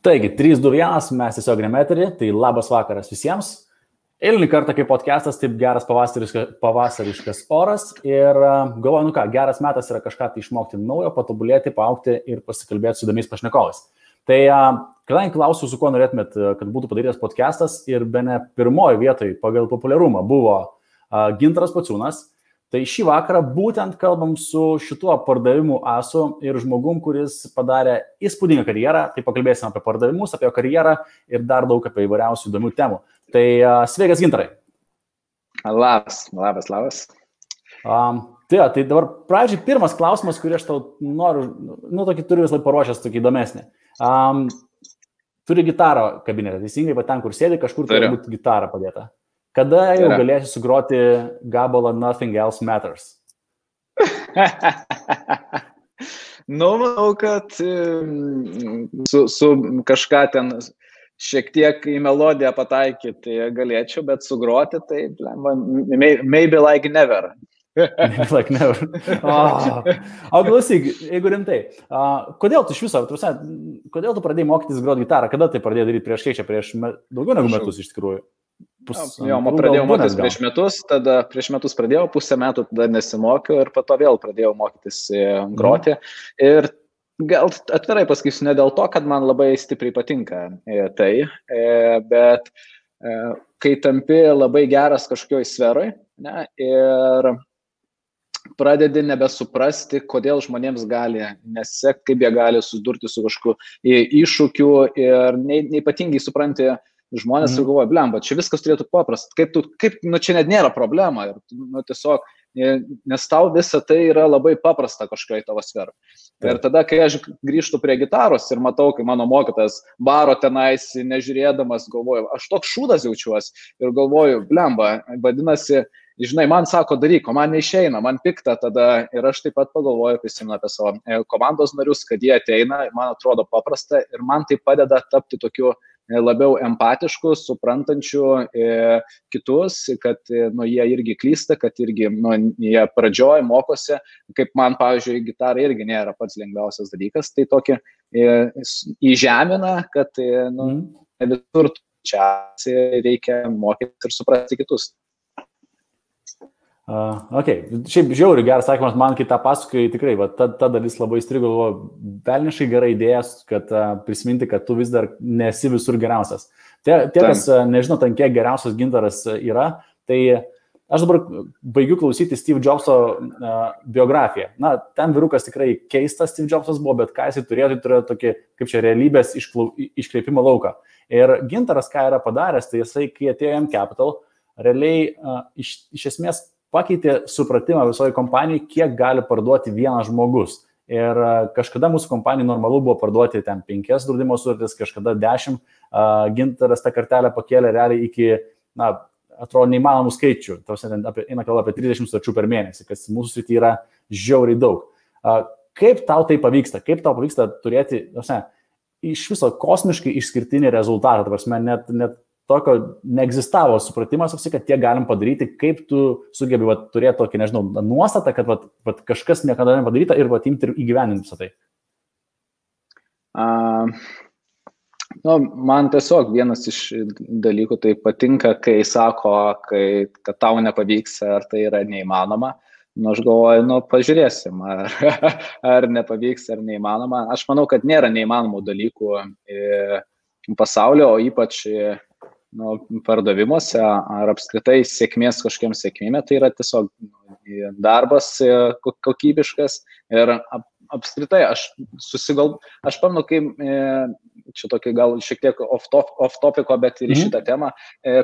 Taigi, 3, 2, 1, mes tiesiog nemeterį, tai labas vakaras visiems. Eilinį kartą kaip podcastas, taip geras pavasariškas oras ir galvoju, nu ką, geras metas yra kažką tai išmokti naujo, patobulėti, paaugti ir pasikalbėti su įdomiais pašnekovais. Tai kadangi klausiu, su kuo norėtumėt, kad būtų padarytas podcastas ir bene pirmoji vietoj pagal populiarumą buvo Gintaras Pociūnas, tai šį vakarą būtent kalbam su šituo pardavimų asu ir žmogum, kuris padarė įspūdingą karjerą, tai pakalbėsim apie pardavimus, apie karjerą ir dar daug apie įvairiausių įdomių temų. Tai sveikas, Gintarai. Labas. Tai dabar pradžiai pirmas klausimas, kurį aš tau noriu, tokį turiu visą laiką paruošęs, tokį įdomesnį. Turi gitarą kabinete, teisingai, va ten, kur sėdi, kažkur turi būti gitarą padėta. Kada jau galėsi sugroti gabalą Nothing Else Matters? Manau, kad su kažką ten šiek tiek į melodiją pataikyti galėčiau, bet sugroti, tai maybe like never. Maybe like never. O klausyk, jeigu rimtai, kodėl tu iš viso, kodėl tu pradėjai mokytis groti gitarą? Kada tai pradėjai daryti prieš daugiau negu metus iš tikrųjų? Pradėjau mokytis prieš metus pradėjau, pusę metų tada nesimokiau ir po to vėl pradėjau mokytis groti. Ir gal atvirai pasakysiu, ne dėl to, kad man labai stipriai patinka tai, bet kai tampi labai geras kažkokioj sferoj, ne, ir pradedi nebesuprasti, kodėl žmonėms gali nesekti, kaip jie gali susidurti su kažkokiu iššūkiu ir neypatingai supranti žmonės ir galvoja, blemba, čia viskas turėtų paprasta, čia net nėra problema ir tiesiog, nes tau visa tai yra labai paprasta kažkokioj tavo sferai. Ir tada, kai aš grįžtu prie gitaros ir matau, kai mano mokytas baro tenais, nežiūrėdamas, galvoju, aš toks šūdas jaučiuosi ir galvoju, blemba, vadinasi, žinai, man sako daryk, o man neišeina, man pikta tada ir aš taip pat pagalvoju, prisimenu apie savo komandos narius, kad jie ateina, man atrodo paprasta ir man tai padeda tapti tokiu labiau empatišku, suprantančiu kitus, kad jie irgi klysta, kad irgi jie pradžioj mokosi, kaip man, pavyzdžiui, gitara irgi nėra pats lengviausias dalykas, tai tokį įžemina, kad visur čia reikia mokyti ir suprasti kitus. Šiaip žiauriai geras sakymas, man kai tą pasakai, tikrai, ta dalis labai įstrigo, velniškai gera idėja, kad prisiminti, kad tu vis dar nesi visur geriausias. Tie kas nežinau, ten kiek geriausias Gintaras yra, tai aš dabar baigiu klausyti Steve Jobso biografiją. Ten vyrukas tikrai keistas Steve Jobsas buvo, bet ką jisai turėjo tokį, kaip čia, realybės iškreipimo lauką. Ir Gintaras, ką yra padaręs, tai jisai, kai atėjo M-Capital, realiai iš esmės pakeitė supratimą visoje kompanijoje, kiek gali parduoti vienas žmogus. Ir kažkada mūsų kompanijai normalu buvo parduoti ten 5 draudimo sutartis, kažkada 10. Gintaras tą kartelę pakėlė realiai iki, atrodo, neįmanomų skaičių. Eina kalba apie 30 sutarčių per mėnesį, kas mūsų srityje yra žiauriai daug. Kaip tau tai pavyksta? Kaip tau pavyksta turėti, iš viso kosmiškai išskirtinį rezultatą? Net tokio neegzistavo supratimas, kad tiek galim padaryti, kaip tu sugebi turėti tokį, nežinau, nuostatą, kad kažkas niekada nepadaryta ir imti ir įgyveninti visą tai. Man tiesiog vienas iš dalykų tai patinka, kai sako, kad tau nepavyks, ar tai yra neįmanoma. Aš galvoju, pažiūrėsim, ar nepavyks, ar neįmanoma. Aš manau, kad nėra neįmanomų dalykų pasaulio, o ypač pardavimuose ar apskritai sėkmės kažkokiam sėkmėme, tai yra tiesiog darbas kokybiškas ir apskritai aš pamenu, kai čia tokį gal šiek tiek off topico, bet ir į šitą temą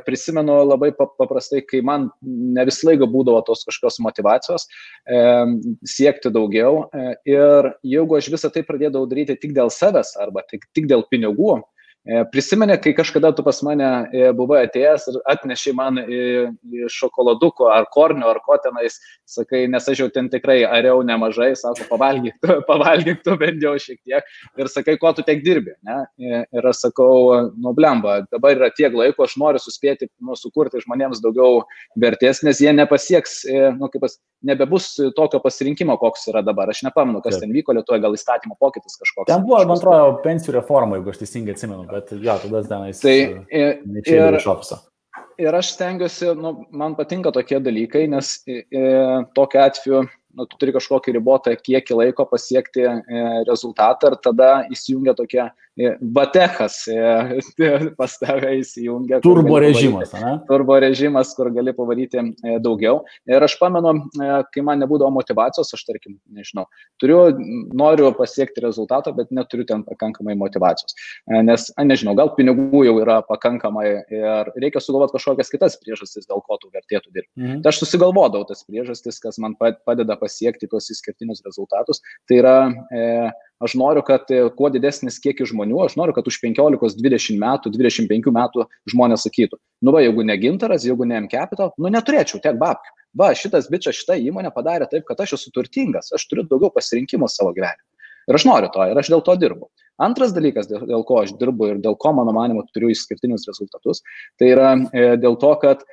prisimenu labai paprastai, kai man ne visą laiką būdavo tos kažkokios motyvacijos siekti daugiau ir jeigu aš visą tai pradėdavau daryti tik dėl savęs arba tik dėl pinigų, Prisimeni, kai kažkada tu pas mane buvai atėjęs ir atnešiai man šokoladuko ar kornio ar ko tenais, sakai, nes aš jau ten tikrai ariau nemažai, sako, pavalgyk tu bent jau šiek tiek ir sakai, ko tu tiek dirbi, ne? Ir aš sakau, nu blemba, dabar yra tiek laiko, aš noriu suspėti, sukurti žmonėms daugiau vertės, nes jie nepasieks, nebebus tokio pasirinkimo, koks yra dabar. Aš nepamenu, kas ten vyko Lietuvoje, gal įstatymo pokytis kažkoks. Ten buvo, man atrodo, pensijų reforma, jeigu aš teisingai atsimenu, bet jo, tada tenais neišėjau iš ofiso. Ir aš stengiuosi, man patinka tokie dalykai, nes tokiu atveju tu turi kažkokį ribotą kiekį laiko pasiekti rezultatą ir tada įsijungia tokie batechas, pas tave įsijungia. Turbo režimas, ne? Turbo režimas, kur gali pavaryti daugiau. Ir aš pamenu, kai man nebūdavo motivacijos, aš tarkim, nežinau, noriu pasiekti rezultatą, bet neturiu ten pakankamai motivacijos. Nes, nežinau, gal pinigų jau yra pakankamai ir reikia sugalvoti kažkokias kitas priežastis, dėl ko tu vertėtų dirbti. Tai aš susigalvodavau tas priežastis, kas man padeda pasiekti tuos išskirtinius rezultatus. Tai yra, aš noriu, kad kuo didesnis kiekis žmonių, aš noriu, kad už 15, 20 metų, 25 metų žmonės sakytų, jeigu ne Gintaras, jeigu ne M-Capital, neturėčiau tiek babkių. Šitas bičas, šita įmonė padarė taip, kad aš esu turtingas, aš turiu daugiau pasirinkimų savo gyvenime. Ir aš noriu to, ir aš dėl to dirbu. Antras dalykas, dėl ko aš dirbu ir dėl ko, mano manimo, turiu išskirtinius rezultatus, tai yra dėl to, kad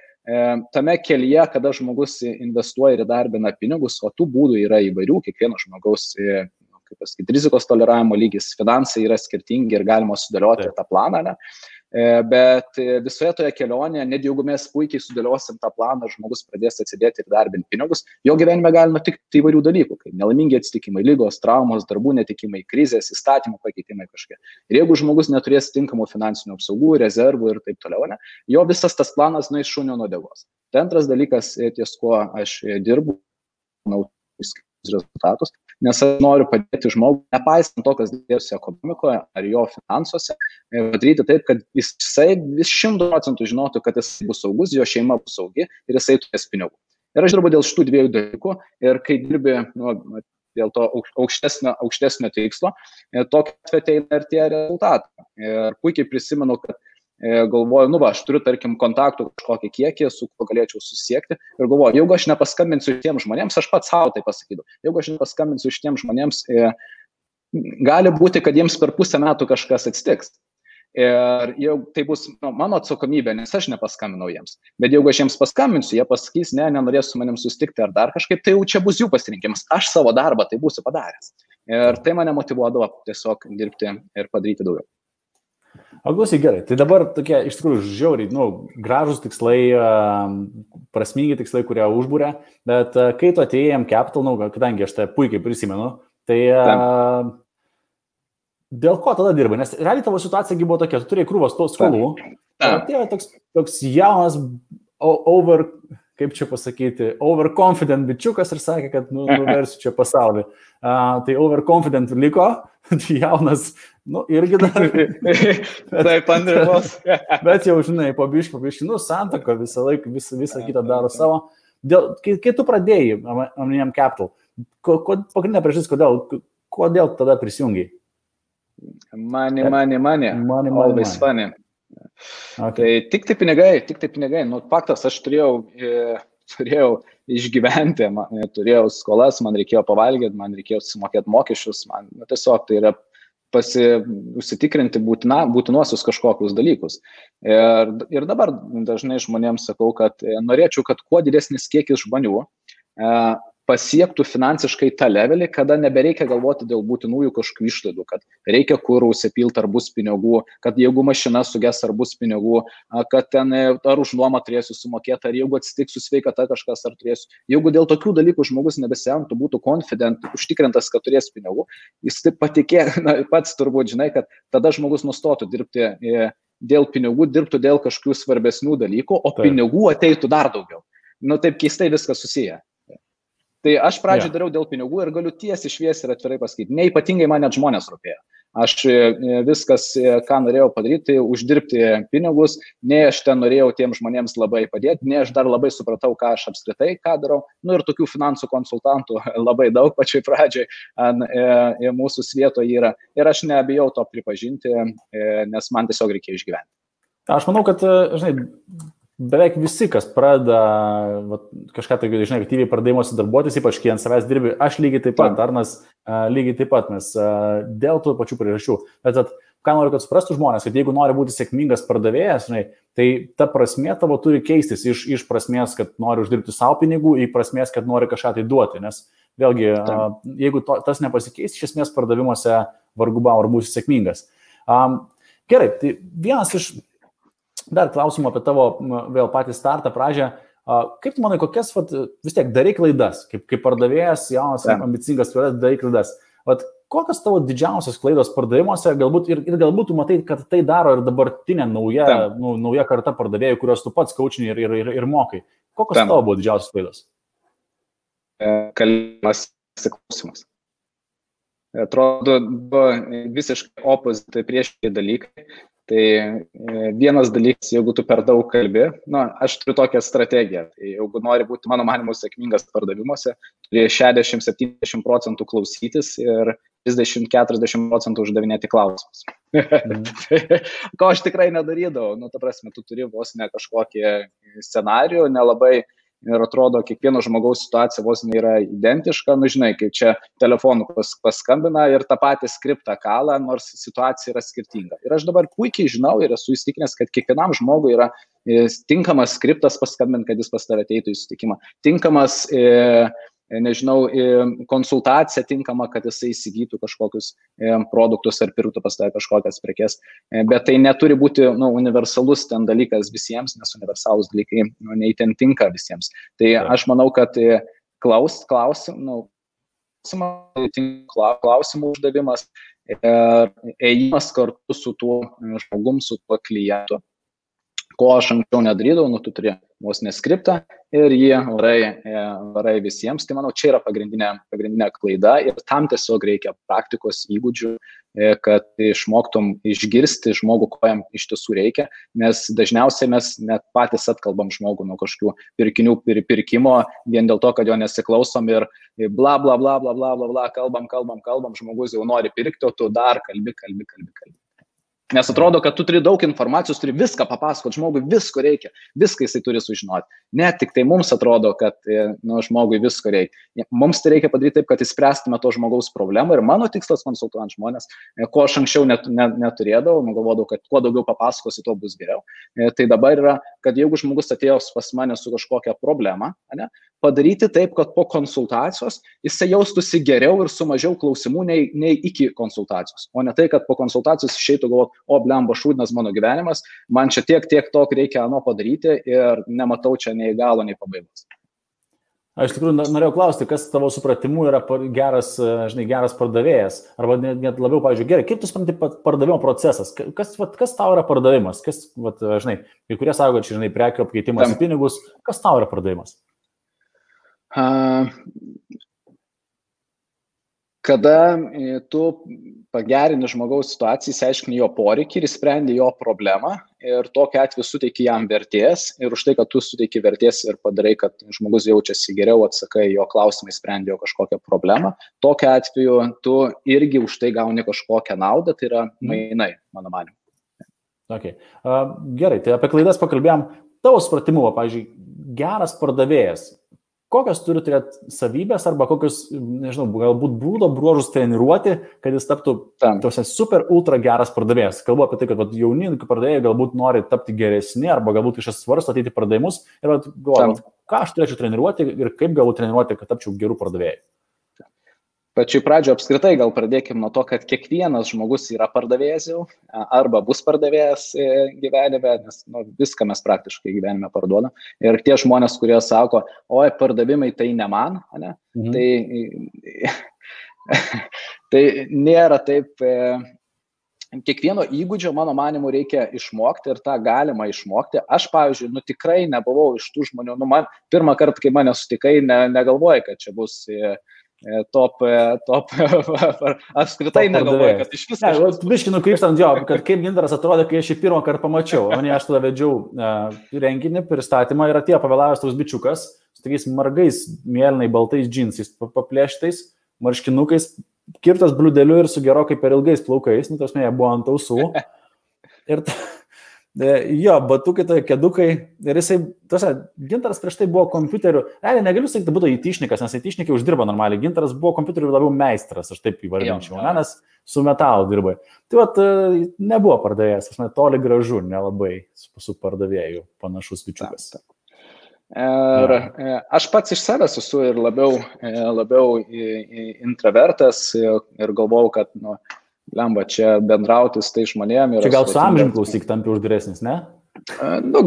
tame kelyje, kada žmogus investuoja ir įdarbina pinigus, o tų būdų yra įvairių, kiekvieno žmogaus, rizikos toleravimo lygis, finansai yra skirtingi ir galima sudėlioti tą planą, ne? Bet visoje toje kelionėje, net jeigu mes puikiai sudėliosim tą planą, žmogus pradės atsidėti ir darbinti pinigus, jo gyvenime gali nutikti įvairių dalykų, kaip nelaimingi atsitikimai, ligos, traumos, darbų netikimai, krizės, įstatymų pakeitimai kažkokie. Ir jeigu žmogus neturės tinkamų finansinių apsaugų, rezervų ir taip toliau, ne, jo visas tas planas nueis šunio nuo uodegos. Tai antras dalykas, ties kuo aš dirbu, rezultatus, nes aš noriu padėti žmogui, nepaisant to, kas dėjosi ekonomikoje ar jo finansuose, padaryti taip, kad jisai 100% žinotų, kad jis bus saugus, jo šeima bus saugi ir jisai turės pinigų. Ir aš dirbu dėl šitų dviejų dalykų ir kai dirbi dėl to aukštesnio tikslo, tokia atveju ateina ir tie rezultatai. Ir puikiai prisimenu, kad galvoju, aš turiu, tarkim, kontaktų kažkokį kiekį, su kuo galėčiau susiekti ir galvoju, jeigu aš nepaskambinsiu šitiems žmonėms, aš pats savo tai pasakydavau, jeigu aš nepaskambinsiu šitiems žmonėms, gali būti, kad jiems per pusę metų kažkas atsitiks. Ir jau tai bus mano atsakomybė, nes aš nepaskambinau jiems. Bet jeigu aš jiems paskambinsiu, jie pasakys, nenorės su manim susitikti ar dar kažkaip, tai jau čia bus jų pasirinkimas. Aš savo darbą tai būsiu padaręs. Ir tai mane motyvuodavo tiesiog dirbti ir padaryti daugiau. O klausyk, gerai, tai dabar tokie iš tikrųjų žiauriai, gražus tikslai, prasmingi tikslai, kurie užbūrė, bet kai tu atėjai M-Capital, kadangi aš tai puikiai prisimenu, tai dėl ko tada dirbai? Nes realiai tavo situacija buvo tokia, tu turėjai krūvas tos skolų, atėjo toks jaunas, overconfident bičiukas ir sakė, kad nuversiu čia pasaulį. Tai overconfident liko, jaunas, irgi dar. Taip, Andrius. Bet jau, žinai, po biškį, santaka visą laiką, visą kitą daro savo. Kai tu pradėjai M-Capital, pagrindinė priežastis, kodėl tada prisijungiai? Money. Always funny. Okay. Tai tik tai pinigai. Faktas, aš turėjau išgyventi, turėjau skolas, man reikėjo pavalgyti, man reikėjo sumokėti mokesčius, man tiesiog tai yra užsitikrinti būtinuosius kažkokius dalykus. Ir dabar dažnai žmonėms sakau, kad norėčiau, kad kuo didesnis kiekis žmonių pasiektų finansiškai tą levelį, kada nebereikia galvoti dėl būtinųjų kažkokių išlaidų, kad reikia kurų užsipilti ar bus pinigų, kad jeigu mašina suges ar bus pinigų, kad ten ar už nuomą turėsiu sumokėti, ar jeigu atsitiks su sveikata kažkas ar turėsiu. Jeigu dėl tokių dalykų žmogus nebesiemtų, būtų confident, užtikrintas, kad turės pinigų, jis taip patikė, pats turbūt žinai, kad tada žmogus nustotų dirbti dėl pinigų, dirbtų dėl kažkokių svarbesnių dalykų, o pinigų ateitų dar daugiau. Taip keistai viskas susiję. Tai aš pradžioj dariau dėl pinigų ir galiu tiesiai šviesiai ir atvirai pasakyti. Neypatingai man net žmonės rūpėjo. Aš viskas, ką norėjau padaryti, uždirbti pinigus, nei aš ten norėjau tiem žmonėms labai padėti, nei aš dar labai supratau, ką aš apskritai, ką darau. Nu ir tokių finansų konsultantų labai daug pačioj pradžioj mūsų svietoje yra. Ir aš nebijau to pripažinti, nes man tiesiog reikia išgyventi. Aš manau, kad, žinai, beveik visi, kas pradeda kažką tai, žinai, aktyviai pardavimosi darbuotis, ypač kai ant savęs dirbi, aš lygiai taip pat, Arnas lygiai taip pat, nes dėl tų pačių priežasčių. Bet ką noriu, kad suprastų žmonės, kad jeigu nori būti sėkmingas pardavėjas, žinai, tai ta prasmė tavo turi keistis iš prasmės, kad nori uždirbti savo pinigų, į prasmės, kad nori kažką tai duoti. Nes vėlgi, jeigu tas nepasikeis, iš esmės pardavimuose vargu bau ar būsi sėkmingas. Gerai, tai vienas iš dar klausimų apie tavo vėl patį startą pradžią. Kaip tu manai, kokias, vis tiek, darai klaidas, kaip pardavėjas, jaunas, ambicingas, darai klaidas. Kokios tavo didžiausios klaidos pardavimuose, galbūt ir galbūt tu matai, kad tai daro ir dabartinė nauja karta pardavėjų, kurios tu pats kaučini ir mokai. Kokios tavo buvo didžiausios klaidos? Kalbėjimas, klausimas. Atrodo, visiškai opozitai priešingi dalykai. Tai vienas dalykas, jeigu tu per daug kalbi, aš turiu tokią strategiją, tai jeigu nori būti, mano manimu, sėkmingas pardavimuose, turi 60-70% klausytis ir 30-40% uždavinėti klausimus. Ko aš tikrai nedarydavau, ta prasme, tu turi vos ne kažkokį scenarijų, nelabai. Ir atrodo, kiekvieno žmogaus situacija vos nėra identiška, žinai, kaip čia telefonu paskambina ir tą patį skriptą kalą, nors situacija yra skirtinga. Ir aš dabar puikiai žinau ir esu įsitikinęs, kad kiekvienam žmogui yra tinkamas skriptas paskambinti, kad jis pas tave ateitų į susitikimą. Tinkamas, konsultacija tinkama, kad jisai įsigytų kažkokius produktus ar pirktų pas tave kažkokias prekes. Bet tai neturi būti universalus ten dalykas visiems, nes universalus dalykai neįten tinka visiems. Tai aš manau, kad klausimų uždavimas ir ėjimas kartu su tuo žmogum, su tuo klientu, ko aš anksčiau nedarydavau, tu turi vos neskriptą ir jį varai visiems. Tai manau, čia yra pagrindinė klaida ir tam tiesiog reikia praktikos įgūdžių, kad išmoktum išgirsti žmogų, ko jam iš tiesų reikia, nes dažniausiai mes net patys atkalbam žmogų nuo kažkokių pirkinių pirkimo vien dėl to, kad jo nesiklausom ir bla bla bla bla bla bla bla, kalbam, žmogus jau nori pirkti, o tu dar kalbi. Nes atrodo, kad tu turi daug informacijos, turi viską papasakoti, žmogui visko reikia, viską jisai turi sužinoti. Ne tik tai mums atrodo, kad žmogui visko reikia. Mums tai reikia padaryti taip, kad įspręstume to žmogaus problemą ir mano tikslas konsultuojant žmonės, ko aš anksčiau neturėdavau, galvodavau, kad kuo daugiau papasakosi, tuo bus geriau. Tai dabar yra, kad jeigu žmogus atėjo pas mane su kažkokia problema, padaryti taip, kad po konsultacijos jisai jaustųsi geriau ir su mažiau klausimų nei iki konsultacijos. O ne tai, kad po konsultacijos išeitų galvoti, o blemba šūdinas mano gyvenimas, man čia tiek to reikia padaryti ir nematau čia nei galo, nei pabaigos. Aš tikrųjų norėjau klausti, kas tavo supratimu yra geras pardavėjas, arba net labiau, pavyzdžiui, gerai, kaip tu supranti pardavimo procesas, kas tau yra pardavimas, kai kurie sako, kad čia, prekių apkeitimas į pinigus, kas tau yra pardavimas? Kada tu pagerini žmogaus situaciją, išsiaiškini jo poreikį ir sprendi jo problemą ir tokiu atveju suteiki jam vertės ir už tai, kad tu suteiki vertės ir padarai, kad žmogus jaučiasi geriau, atsakai jo klausimai, sprendi jo kažkokią problemą, tokiu atveju tu irgi už tai gauni kažkokią naudą, tai yra mainai, mano manimu. Okay. Gerai, tai apie klaidas pakalbėjom. Tavo supratimu, pavyzdžiui, geras pardavėjas, kokios turi turėti savybės arba kokios, galbūt būdo bruožus treniruoti, kad jis taptų super ultra geras pardavėjas. Kalbu apie tai, kad jauni pardavėjai galbūt nori tapti geresni arba galbūt kažkas svarsto ateiti pardavimus ir galvoju, ką aš turėčiau treniruoti ir kaip galbūt treniruoti, kad tapčiau gerų pardavėjų. Pačioj pradžioje apskritai gal pradėkime nuo to, kad kiekvienas žmogus yra pardavėjas jau arba bus pardavėjas gyvenime, nes viską mes praktiškai gyvenime parduodam. Ir tie žmonės, kurie sako, oi, pardavimai tai ne man, tai nėra taip. Kiekvieno įgūdžio, mano manimu, reikia išmokti ir tą galima išmokti. Aš, pavyzdžiui, tikrai nebuvau iš tų žmonių, man pirmą kartą, kai mane sutikai, negalvojai, kad čia bus top apskritai negalvoju, kad iš viso. Biškai nukrypstant jo, kad kaip Gintaras atrodė, kai aš jį pirmą kartą pamačiau. Aš tada vedžiau renginį, pristatymą ir atėjo pavėlavęs toks bičiukas, su tokiais margais, mėlynai baltais džinsais, paplėštais, marškinukais, kirtas bliudeliu ir su gerokai per ilgais plaukais, nu, tos jie buvo ant ausų. Ir jo, batukai, tai kedukai. Ir jisai, Gintaras prieš tai buvo kompiuteriu, negaliu sakyti, kad būtų įtišnikas, nes įtišnikai uždirba normaliai. Gintaras buvo kompiuteriu labiau meistras, aš taip įvardinčiau, nes su metalu dirbai. Tai vat, nebuvo pardavėjas, toli gražu, nelabai su pardavėju panašus bičiukas. Ir aš pats iš savęs esu ir labiau intravertas ir galvau, kad, lemba, čia bendrauti su tai žmonėm. Čia gal su amžium klausyk tampi uždaresnis, ne?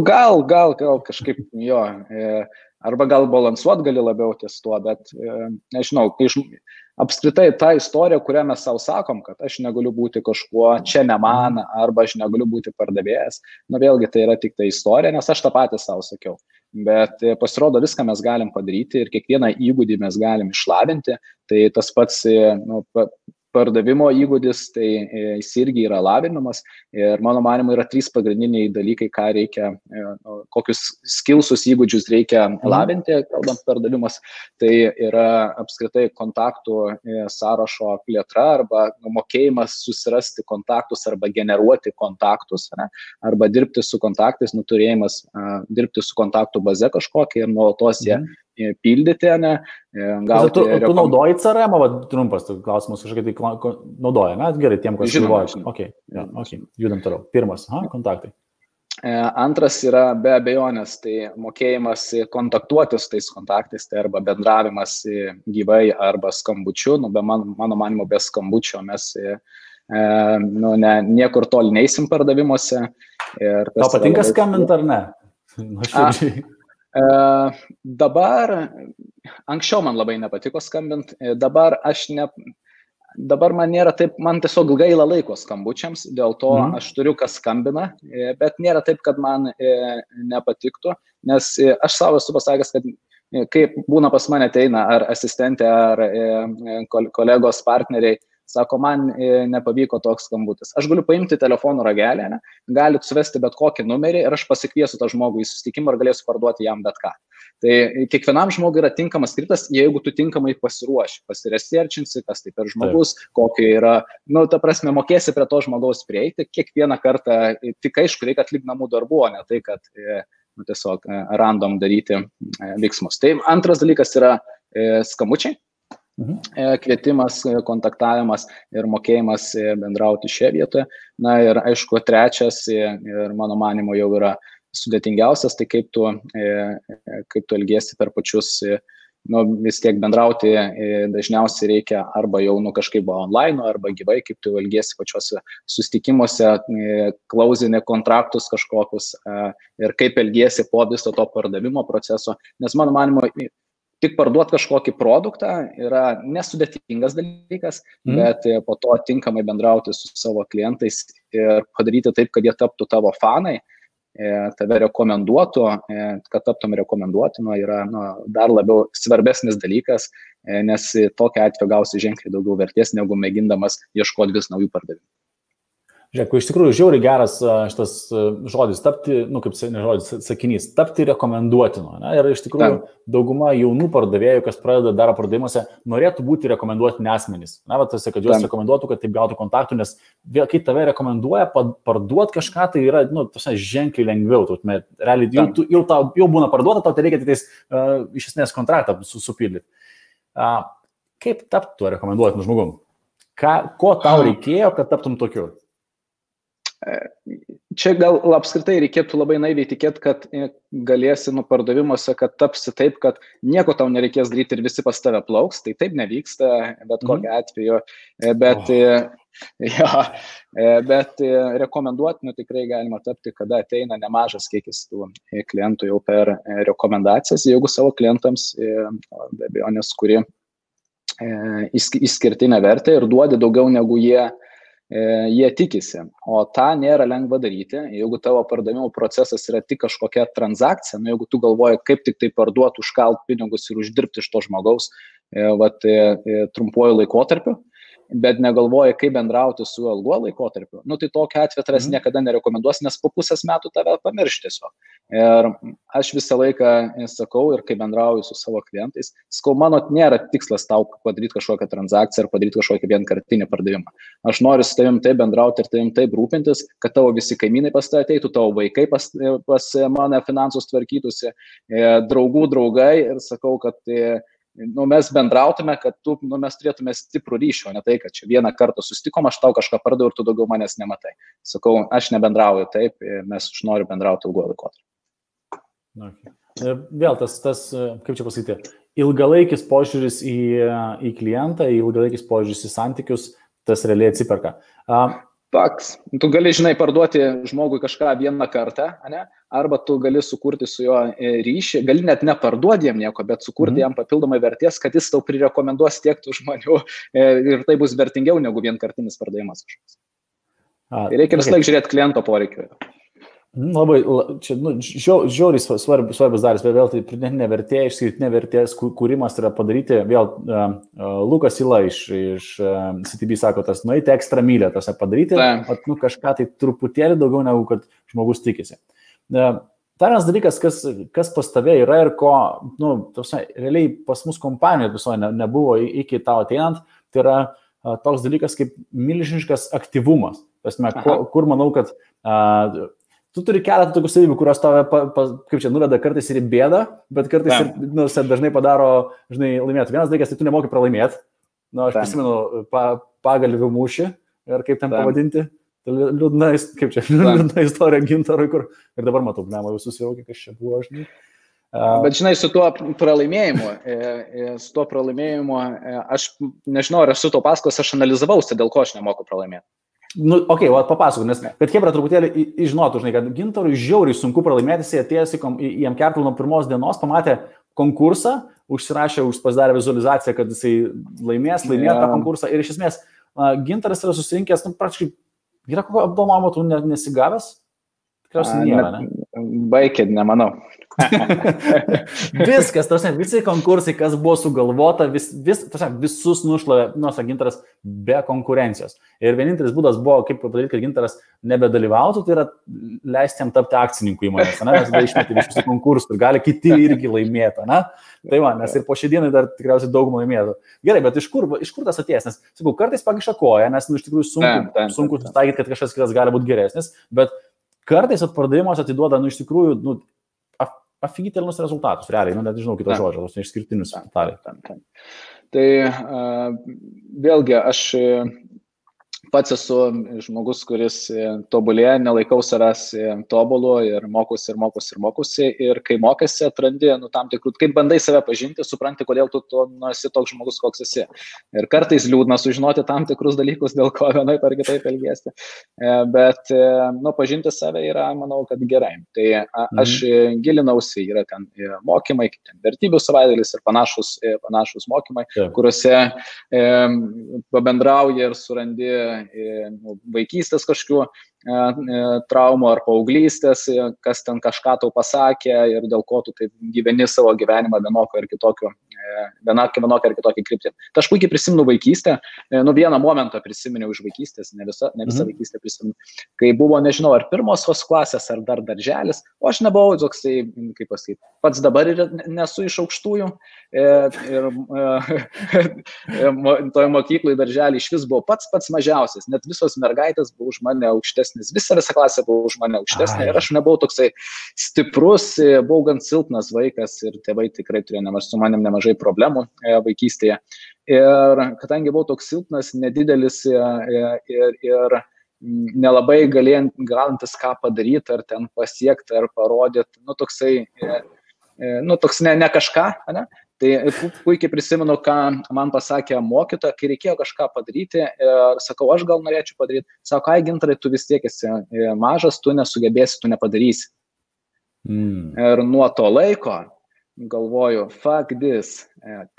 Gal kažkaip jo. Arba gal balansuot gali labiau ties tuo, bet nežinau, apskritai ta istorija, kurią mes savo sakom, kad aš negaliu būti kažkuo, čia ne man, arba aš negaliu būti pardavėjas, vėlgi tai yra tik ta istorija, nes aš tą patį savo sakiau. Bet pasirodo, viską mes galim padaryti ir kiekvieną įgūdį mes galim išlavinti, tai tas pats pardavimo įgūdis, tai jis irgi yra lavinamas ir mano manymu yra 3 pagrindiniai dalykai, ką reikia, kokius skillsus įgūdžius reikia lavinti, kalbant pardavimas, tai yra apskritai kontaktų sąrašo plėtra arba mokėjimas susirasti kontaktus arba generuoti kontaktus, arba dirbti su kontaktais, turėjimas dirbti su kontaktų baze kažkokia ir nuolatos jie pildyti, Tu naudoji CRM, trumpas klausimas, kažkaip tai naudoja, gerai, tiem, kas galvoja. Okay, judam toliau. Pirmas, kontaktai. Antras yra be abejonės, tai mokėjimas kontaktuoti su tais kontaktais, tai arba bendravimas gyvai arba skambučiu, be mano manimo be skambučio mes niekur toli neįsim pardavimuose. Tau patinka skambinti ar ne? Dabar, anksčiau man labai nepatiko skambinti, dabar man nėra taip, man tiesiog gaila laiko skambučiams, dėl to aš turiu, kas skambina, bet nėra taip, kad man nepatiktų, nes aš savo esu pasakęs, kad kai būna pas mane ateina ar asistentė, ar kolegos partneriai, sako, man nepavyko toks skambutis. Aš galiu paimti telefonų ragelį, galit suvesti bet kokį numerį ir aš pasikviesiu tą žmogų į susitikimą ir galėsiu parduoti jam bet ką. Tai kiekvienam žmogui yra tinkamas skriptas, jeigu tu tinkamai pasiruoši, pasiresearchinsi, kas tai per žmogus, kokie yra, ta prasme, mokėsi prie to žmogaus prieiti, kiekvieną kartą, tik aišku, reikia atlikti namų darbų, o ne tai, kad tiesiog random daryti veiksmus. Tai antras dalykas yra skambučiai. Kvietimas, kontaktavimas ir mokėjimas bendrauti šioje vietoje. Ir aišku, trečias ir mano manimo jau yra sudėtingiausias, tai kaip tu elgiesi per pačius, vis tiek bendrauti dažniausiai reikia arba jau kažkaip online, arba gyvai, kaip tu elgiesi pačiuose susitikimuose, klausinė kontraktus kažkokius ir kaip elgiesi po viso to pardavimo proceso, nes mano manimo, tik parduoti kažkokį produktą yra nesudėtingas dalykas, bet po to tinkamai bendrauti su savo klientais ir padaryti taip, kad jie taptų tavo fanai, tave rekomenduotų, kad taptum rekomenduotinu, yra dar labiau svarbesnis dalykas, nes tokia atveju gausi ženkliai daugiau vertės, negu mėgindamas ieškoti vis naujų pardavimų. Žiūrėk, iš tikrųjų žiauriai geras šitas žodis, tapti, kaip sakinys, tapti rekomenduotinu. Ir iš tikrųjų dauguma jaunų pardavėjų, kas pradeda daro pardavimuose, norėtų būti rekomenduotini asmenys. Tas, kad juos rekomenduotų, kad taip gautų kontaktų, nes kai tave rekomenduoja, parduoti kažką, tai yra ženkliai lengviau. Realiai jau būna parduota, tau tai reikia tik iš esmės kontraktą supildyti. Kaip tapti tuo rekomenduotinu žmogum? Ko tau reikėjo, kad taptum tokiu? Čia gal apskritai reikėtų labai naiviai tikėti, kad galėsi pardavimuose, kad tapsi taip, kad nieko tau nereikės daryti ir visi pas tave plauks, tai taip nevyksta, bet kokiu atveju, bet rekomenduotinu tikrai galima tapti, kada ateina nemažas kiekis tų klientų jau per rekomendacijas, jeigu savo klientams be abejonės, kuri išskirtinę vertę ir duodi daugiau negu jie jie tikisi, o tą nėra lengva daryti, jeigu tavo pardavimo procesas yra tik kažkokia transakcija, nu, jeigu tu galvoji, kaip tik tai parduoti, užkalt pinigus ir uždirbti iš to žmogaus trumpuoju laikotarpiu, bet negalvoji, kaip bendrauti su ilguo laikotarpiu, nu, tai tokia atveju tavęs niekada nerekomenduos, nes po pusės metų tave pamirš tiesiog. Ir aš visą laiką sakau ir kai bendrauju su savo klientais, sakau, mano nėra tikslas tau padaryti kažkokią transakciją ar padaryti kažkokį vienkartinį pardavimą. Aš noriu su tavim taip bendrauti ir tavim taip rūpintis, kad tavo visi kaimynai pas tave ateitų, tavo vaikai pas mane finansus tvarkytųsi, draugų draugai ir sakau, kad mes bendrautume, kad mes turėtume stiprų ryšį, o ne tai, kad čia vieną kartą susitikom, aš tau kažką pardaviau ir tu daugiau manęs nematai. Sakau, aš nebendrauju taip, mes aš noriu bendrauti ilguoju laikotarpiu. Okay. Vėl tas, kaip čia pasakyti, ilgalaikis požiūris į klientą, ilgalaikis požiūris į santykius, tas realiai atsiperka. Faks. Tu gali, žinai, parduoti žmogui kažką vieną kartą, ne? Arba tu gali sukurti su juo ryšį, gali net neparduoti jam nieko, bet sukurti jam papildomai vertės, kad jis tau prirekomenduos tiek tų žmonių ir tai bus vertingiau negu vienkartinis pardavimas kažkoks. Tai reikia vis laik žiūrėti kliento poreikiu. Labai, čia, žiauriai svarbus dalis, bet vėl tai pridėtinė vertė, išskirtinė vertės kūrimas yra padaryti, vėl Lukas Ila iš CTB sako, tas nueiti ekstra mylę, tas padaryti, kažką tai truputėlį daugiau negu kad žmogus tikisi. Dar vienas dalykas, kas pas tave yra ir ko, realiai pas mus kompanijoje visoje nebuvo iki tau ateinant, tai yra toks dalykas kaip milžiniškas aktyvumas. Kur manau, kad tu turi keletą tokių savybių, kurios tave, kaip čia, nuveda kartais ir į bėdą, bet kartais ir dažnai padaro, laimėti. Vienas dalykas, tai tu nemoki pralaimėti. Aš prisimenu pagalvių mūšį, ir kaip ten pavadinti. Liūdna istorija Gintarui, kur ir dabar matau, jau susivokė, kas čia buvo, žinai. Bet žinai, su tuo pralaimėjimu, aš nežinau, ar esu to pasakos, aš analizavausi, dėl ko aš nemoku pralaimėti. Papasakau, nes kad Hebra truputėlį žinotų, žinai, kad Gintarui žiauriai sunku pralaimėti, jis atėjęs į Amkertl nuo pirmos dienos, pamatė konkursą, užsirašė, pasidarė vizualizaciją, kad jisai laimėjo tą konkursą ir iš esmės Gintaras yra susirinkęs, praktiškai, yra kokio apdovanojimo tu nesigavęs? Tikriausiai nėra, ne? Baikit, nemanau. Viskas, visi konkursai, kas buvo sugalvota, visus nušlavė Gintaras be konkurencijos. Ir vienintelis būdas buvo, kaip padaryti, kad Gintaras nebedalyvautų, tai yra leisti jam tapti akcininku įmonės, nes tada išmeti iš visų konkursų ir gali kiti irgi laimėti. Tai nes ir po šią dieną dar tikriausiai daugumą laimėtų. Gerai, bet iš kur tas atėjęs? Nes, sakau, kartais pakiša koją, nes iš tikrųjų sunku taikyti, kad kažkas kitas gali būti geresnis, bet kartais atpardavimas atiduoda, iš tikrųjų, afigitelnus rezultatus, realiai, net nežinau kito žodžio, tos neišskirtinius rezultatai. Tai vėlgi, aš pats esu žmogus, kuris tobulėja, nelaikau savęs tobulu ir mokusi. Ir kai mokėsi, atrandi, tam tikrų, kaip bandai save pažinti, supranti, kodėl tu esi toks žmogus, koks esi. Ir kartais liūdna sužinoti tam tikrus dalykus, dėl ko vienaip ar kitaip elgiesi. Bet, pažinti save yra, manau, kad gerai. Tai aš gilinausi, yra ten mokymai, kaip ten vertybių savaitgalis ir panašus mokymai, kuriuose pabendrauji ir surandi vaikystės kažkokių traumų ar paauglystės, kas ten kažką tau pasakė ir dėl ko tu taip gyveni savo gyvenimą vienokią ar kitokią kryptį. Tai aš puikiai prisimenu vaikystę, vieną momentą prisiminiau iš vaikystės, ne visą vaikystę prisimenu, kai buvo, nežinau, ar pirmosios klasės, ar dar darželis, o aš nebuvau toksai, kaip pasakyti, pats dabar ir nesu iš aukštųjų ir toje mokykloje darželį iš vis buvo pats mažiausias, net visos mergaitės buvo už mane aukštesnis, visa klasė buvo už mane aukštesnė ir aš nebuvau toksai stiprus, buvau gan silpnas vaikas ir tėvai tikrai turėjo su manim nemažai problemų vaikystėje. Ir kadangi buvau toks silpnas, nedidelis ir nelabai galintis ką padaryti, ar ten pasiekti, ar parodyti, toks ne kažką, ne? Tai puikiai prisimenu, ką man pasakė mokytoja, kai reikėjo kažką padaryti ir sakau, aš gal norėčiau padaryti. Sako, Gintarai, tu vis tiek esi mažas, tu nesugebėsi, tu nepadarysi. Ir nuo to laiko galvoju, fuck this,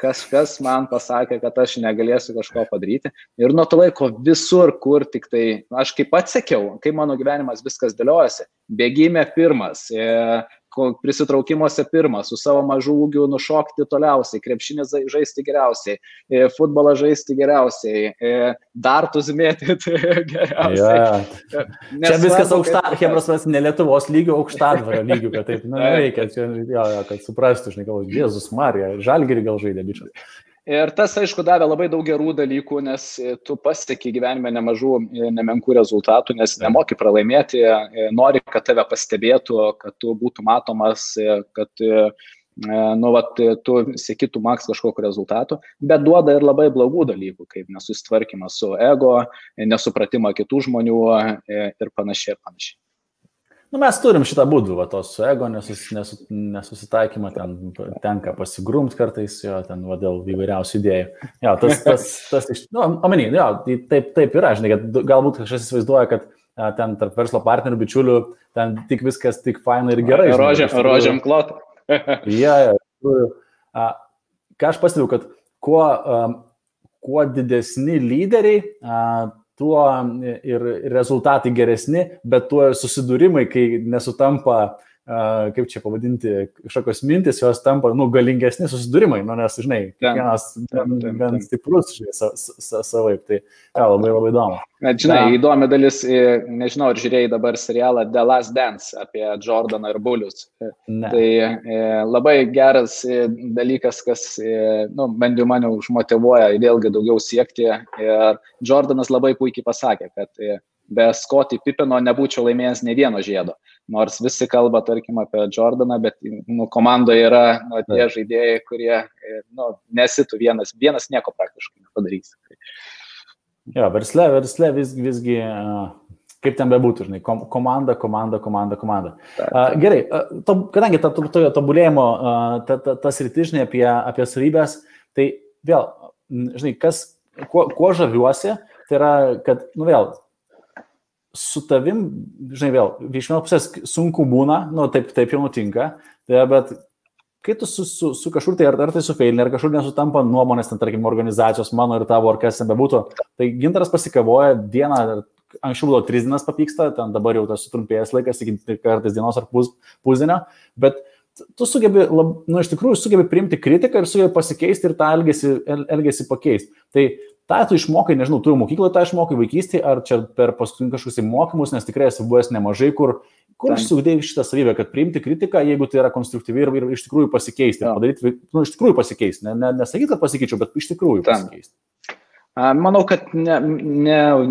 kažkas man pasakė, kad aš negalėsiu kažko padaryti. Ir nuo to laiko visur, kur tik tai, aš kaip atsekiau, kaip mano gyvenimas viskas dėliojasi, bėgime pirmas, prisitraukimuose pirmas, su savo mažu ūgiu nušokti toliausiai, krepšinį žaisti geriausiai, futbolą žaisti geriausiai, dartus mėtyti geriausiai. Čia viskas Hebros ne Lietuvos lygių, aukštadvario lygių, kad taip, reikia, kad suprastų, žinai, galvoju, Jėzus Marija, Žalgirį gal žaidė bičias. Ir tas, aišku, davė labai daug gerų dalykų, nes tu pasieki gyvenime nemažų, nemenkų rezultatų, nes nemoki pralaimėti, nori, kad tave pastebėtų, kad tu būtų matomas, kad tu siekitų maks kažkokiu rezultatu, bet duoda ir labai blogų dalykų, kaip nesusitvarkymas su ego, nesupratimą kitų žmonių ir panašiai ir panašiai. Mes turim šitą būdų, tos su ego nesusitaikymą, ten tenka pasigrumti kartais, ten dėl įvairiausių idėjų. Taip yra, žinai, kad galbūt kažkas įsivaizduoja, kad ten tarp verslo partnerių, bičiulių, ten tik viskas tik fainai ir gerai. Rožiam klotą. Ką aš pastebiu, kad kuo didesni lyderiai, tuo ir rezultatai geresni, bet tuo susidūrimai, kai nesutampa, kaip čia pavadinti, kažkokios mintis, jos tampa, galingesni susidūrimai, nes, žinai, kiekvienas gan stiprus, savaip, tai labai labai įdomu. Žinai, įdomi dalis, nežinau, ar žiūrėjai dabar serialą The Last Dance apie Jordaną ir Bullius. Tai labai geras dalykas, kas, bent jau mane užmotyvuoja vėlgi daugiau siekti. Ir Jordanas labai puikiai pasakė, kad be Scottie Pippeno nebūčiau laimėjęs ne vieno žiedo. Nors visi kalba, tarkim, apie Jordaną, bet komandoje yra tie žaidėjai, kurie nesitų vienas nieko praktiškai nepadarys. Versle visgi, kaip ten bebūtų, žinai, komanda. Gerai, kadangi tobulėjimo tas rytis, žinai, apie savybės, tai vėl, žinai, kuo žaviuosi, tai yra, kad, su tavim, žinai, vėl, iš vienos pusės sunku būna, taip jau nutinka, bet kai tu su kažkur, tai ar tai su feilini, ar kažkur nesutampa nuomonės, ten, tarkim, organizacijos mano ir tavo, ar kas ten bebūtų, tai Gintaras pasikavoja dieną, anksčiau buvo 3 dienas papyksta, ten dabar jau tas sutrumpėjęs laikas, iki kartais dienos ar pusdienio, bet tu sugebi, iš tikrųjų sugebi priimti kritiką ir sugebi pasikeisti ir tą elgesį pakeisti. Tai tą tu išmokai, nežinau, tu jau mokykloje tą išmokai vaikystėje, ar čia per paskutinius kažkokius mokymus, nes tikrai esi buvęs nemažai, kur išsiugdėjai šitą savybę, kad priimti kritiką, jeigu tai yra konstruktyvi ir iš tikrųjų pasikeisti, padaryti, iš tikrųjų pasikeisti, nesakyti, kad pasikeičiau, bet iš tikrųjų pasikeisti. Manau, kad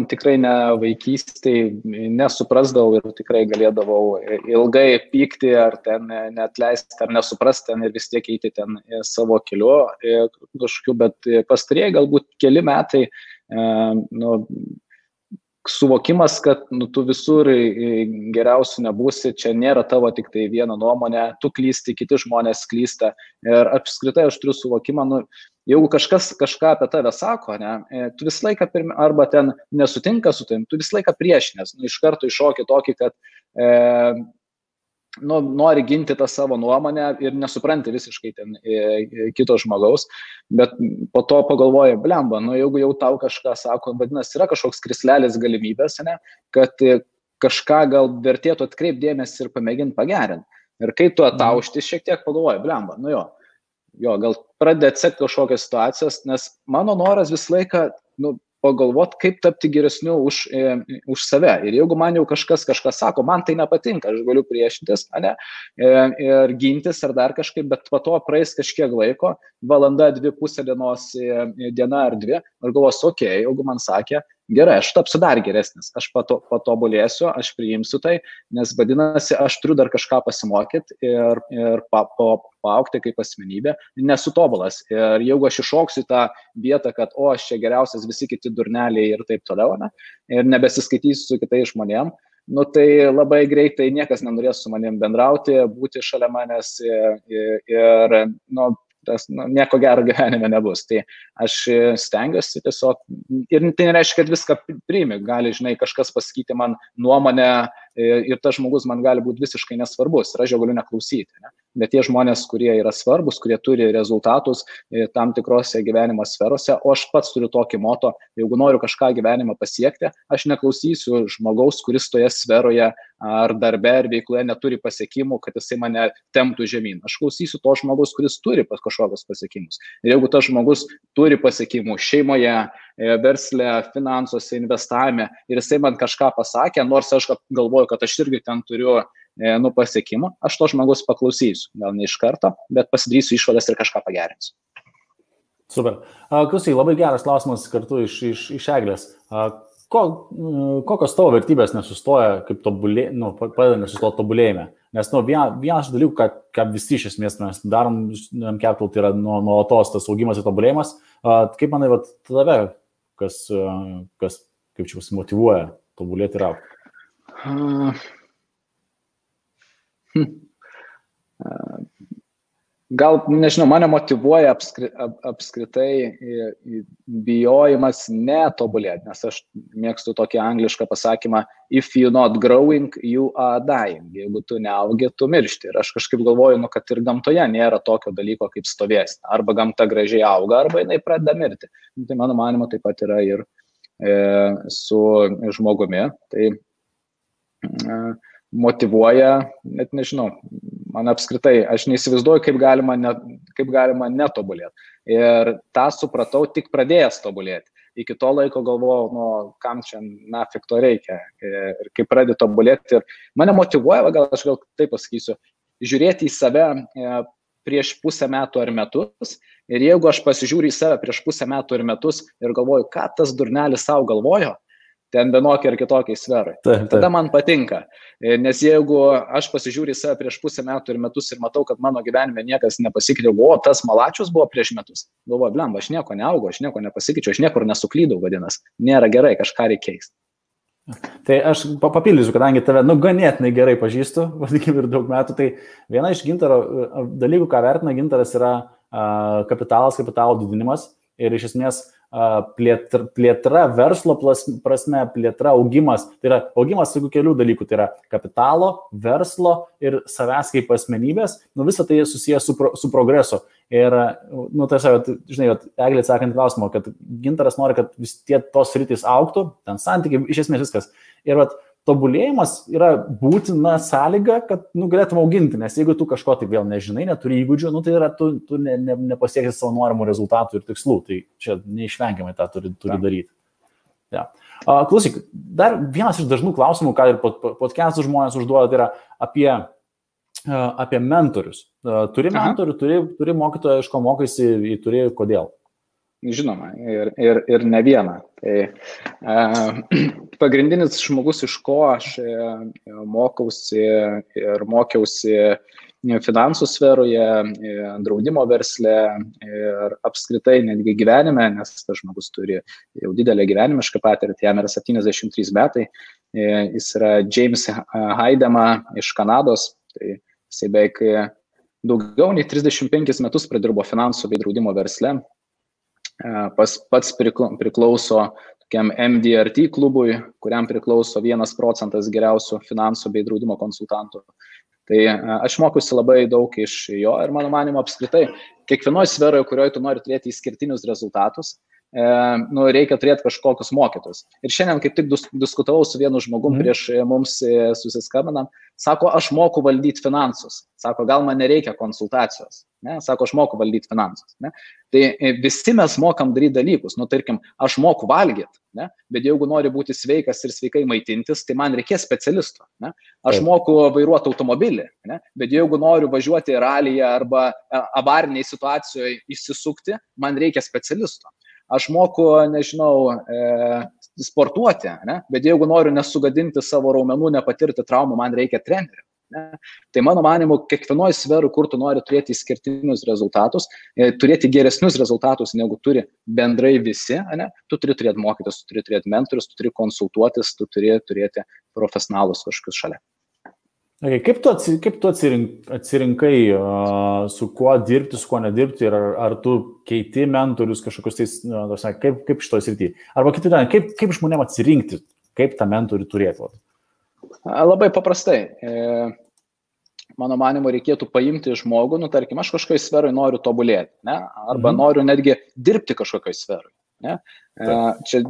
tikrai ne vaikystėje nesuprasdavau ir tikrai galėdavau ilgai pykti ar ten neatleisti ar nesuprasti ten ir vis tiek eiti ten savo keliu kažkokiu, bet pastarieji galbūt keli metai suvokimas, kad tu visur geriausių nebūsi, čia nėra tavo tik tai viena nuomonė, tu klysti, kiti žmonės klysta ir apskritai aš turiu suvokimą, jeigu kažkas kažką apie tave sako, tu visą laiką arba ten nesutinka su tavim, tu visą laiką priešinės, iš karto iššoki tokį, kad nori ginti tą savo nuomonę ir nesupranti visiškai ten kito žmogaus, bet po to pagalvoji, blemba, jeigu jau tau kažką sako, vadinasi, yra kažkoks krislelis galimybės, kad kažką gal vertėtų atkreipti dėmesį ir pamėginti pagerinti. Ir kai tu ataušti šiek tiek pagalvoji, blemba, gal pradedi atsekti kažkokias situacijas, nes mano noras visą laiką pagalvoti, kaip tapti geresniu už save. Ir jeigu man jau kažkas sako, man tai nepatinka, aš galiu priešintis, ir gintis ar dar kažkaip, bet po to praeis kažkiek laiko, valanda, 2, pusė dienos, diena ar 2, ir galvosiu, jeigu man sakė, gerai, aš tapsiu dar geresnis, aš patobulėsiu, aš priimsiu tai, nes vadinasi, aš turiu dar kažką pasimokyti ir paaugti kaip asmenybė, nesu tobulas. Ir jeigu aš iššoksiu tą vietą, kad aš čia geriausias, visi kiti durneliai ir taip toliau, ir nebesiskaitysiu su kitais žmonėm, tai labai greitai niekas nenorės su manim bendrauti, būti šalia manęs ir nieko gero gyvenime nebus. Tai aš stengiuosi tiesiog, ir tai nereiškia, kad viską priimi, gali, žinai, kažkas pasakyti man nuomonę ir tas žmogus man gali būti visiškai nesvarbus ir aš jo galiu neklausyti. bet tie žmonės, kurie yra svarbus, kurie turi rezultatus tam tikrose gyvenimo sferose, o aš pats turiu tokį moto, jeigu noriu kažką gyvenimą pasiekti, aš neklausysiu žmogaus, kuris toje sferoje ar darbe, ar veikloje neturi pasiekimų, kad jisai mane temptų žemyn. Aš klausysiu to žmogus, kuris turi kažkokius pasiekimus. Ir jeigu tas žmogus turi pasiekimų šeimoje, versle, finansuose, investavime ir jisai man kažką pasakė, nors aš galvoju, kad aš irgi ten turiu pasiekimų, aš to žmogus paklausysiu. Gal ne iš karto, bet pasidarysiu išvadas ir kažką pagerinsiu. Super. Klausyk, labai geras klausimas kartu iš Eglės. Kokios tavo vertybės nesustoja, kaip padeda nesustoti tobulėjime? Nes vienas dalykų, ką visi iš esmės mes darom, Capital, tai yra nuolatos tas augimas ir tobulėjimas. Kaip manai, tave, kas kaip čia motyvuoja tobulėti ir augti? Gal, nežinau, mane motyvuoja apskritai bijojimas netobulėti, nes aš mėgstu tokį anglišką pasakymą if you're not growing, you are dying. Jeigu tu neaugi, tu miršti. Ir aš kažkaip galvoju, kad ir gamtoje nėra tokio dalyko kaip stovėsna. Arba gamta gražiai auga, arba jinai pradeda mirti. Tai mano manimo taip pat yra ir su žmogumi. Tai motyvuoja, net nežinau, man apskritai, aš neįsivaizduoju, kaip galima netobulėti. Ir tą supratau tik pradėjęs tobulėti. Iki to laiko galvojau, kam čia nafik to reikia. Ir kai pradėjau tobulėti, ir mane motyvuoja, aš gal taip pasakysiu, žiūrėti į save prieš pusę metų ar metus. Ir jeigu aš pasižiūriu į save prieš pusę metų ir metus ir galvoju, ką tas durnelis savo galvojo, ten vienokiai ar kitokiai sferai. Tada man patinka. Nes jeigu aš pasižiūriu į save prieš pusę metų ir metus ir matau, kad mano gyvenime niekas nepasikeitė, tas malačius buvo prieš metus. Galvoju, blemba, aš nieko neaugau, aš nieko nepasikeičiau, aš niekur nesuklydau, vadinasi. Nėra gerai, kažką reikia keisti. Tai aš papildysiu, kadangi tave ganėtinai gerai pažįstu, vadikim ir daug metų, tai viena iš Gintaro dalykų, ką vertina Gintaras, yra kapitalo didinimas ir iš esmės plėtra verslo prasme, plėtra augimas, tai yra augimas su kelių dalykų, tai yra kapitalo, verslo ir savęs kaip asmenybės, visą tai susijęs su progresu. Ir, žinai, Eglė atsakant klausimą, kad Gintaras nori, kad vis tie tos sritys augtų, ten santykiai, iš esmės viskas. Ir tobulėjimas yra būtina sąlyga, kad galėtum auginti, nes jeigu tu kažko tai vėl nežinai, neturi įgūdžių, tai yra tu nepasieksi savo norimų rezultatų ir tikslų, tai čia neišvengiamai tą turi daryti. Ja. Klausyk, dar vienas iš dažnų klausimų, ką ir podcastų žmonės užduoda, tai yra apie mentorius. Turi mentorių, turi mokytoją, iš ko mokaisi, turi kodėl? Žinoma, ir ne vieną. Tai pagrindinis žmogus, iš ko aš mokiausi finansų sferoje, draudimo versle ir apskritai netgi gyvenime, nes tas žmogus turi jau didelę gyvenimišką patirtį, jam yra 73 metai, jis yra James Haidema iš Kanados, tai jisai beveik daugiau nei 35 metus pradirbo finansų bei draudimo versle. Pats priklauso tokiam MDRT klubui, kuriam priklauso 1% geriausių finansų bei draudimo konsultantų. Tai aš mokiausi labai daug iš jo ir mano manimo apskritai, kiekvienoje sferoje, kurioje tu nori turėti išskirtinius rezultatus, reikia turėti kažkokius mokytus. Ir šiandien kaip tik diskutavau su vienu žmogum prieš mums susiskambinam, sako, aš moku valdyti finansus. Sako, gal man nereikia konsultacijos. Ne? Sako, aš moku valdyti finansus. Ne? Tai visi mes mokam daryti dalykus. Tarkim, aš moku valgyti, ne? Bet jeigu nori būti sveikas ir sveikai maitintis, tai man reikės specialisto. Ne? Aš moku vairuoti automobilį, ne? Bet jeigu noriu važiuoti ralyje arba avariniai situacijoje įsisukti, man reikia specialisto. Aš moku, nežinau, sportuoti, ne? Bet jeigu noriu nesugadinti savo raumenų, nepatirti traumų, man reikia trenerio. Ne? Tai mano manimu, kiekvienoje sferų, kur tu nori turėti išskirtinius rezultatus, turėti geresnius rezultatus, negu turi bendrai visi, ne? Tu turi turėti mokytis, tu turi turėti mentorius, tu turi konsultuotis, tu turi turėti profesionalus kažkokius šalia. Okay, kaip tu atsirinkai, su kuo dirbti, su kuo nedirbti ir ar tu keiti mentorius kažkokius tais, kaip šitoj srity? Arba kaip žmonėm atsirinkti, kaip tą mentorių turėti? Labai paprastai. mano manimu, reikėtų paimti žmogų, tarkim, aš kažkokioj sferoj noriu tobulėti, ne? Arba noriu netgi dirbti kažkokioj sferoj. Ne? Čia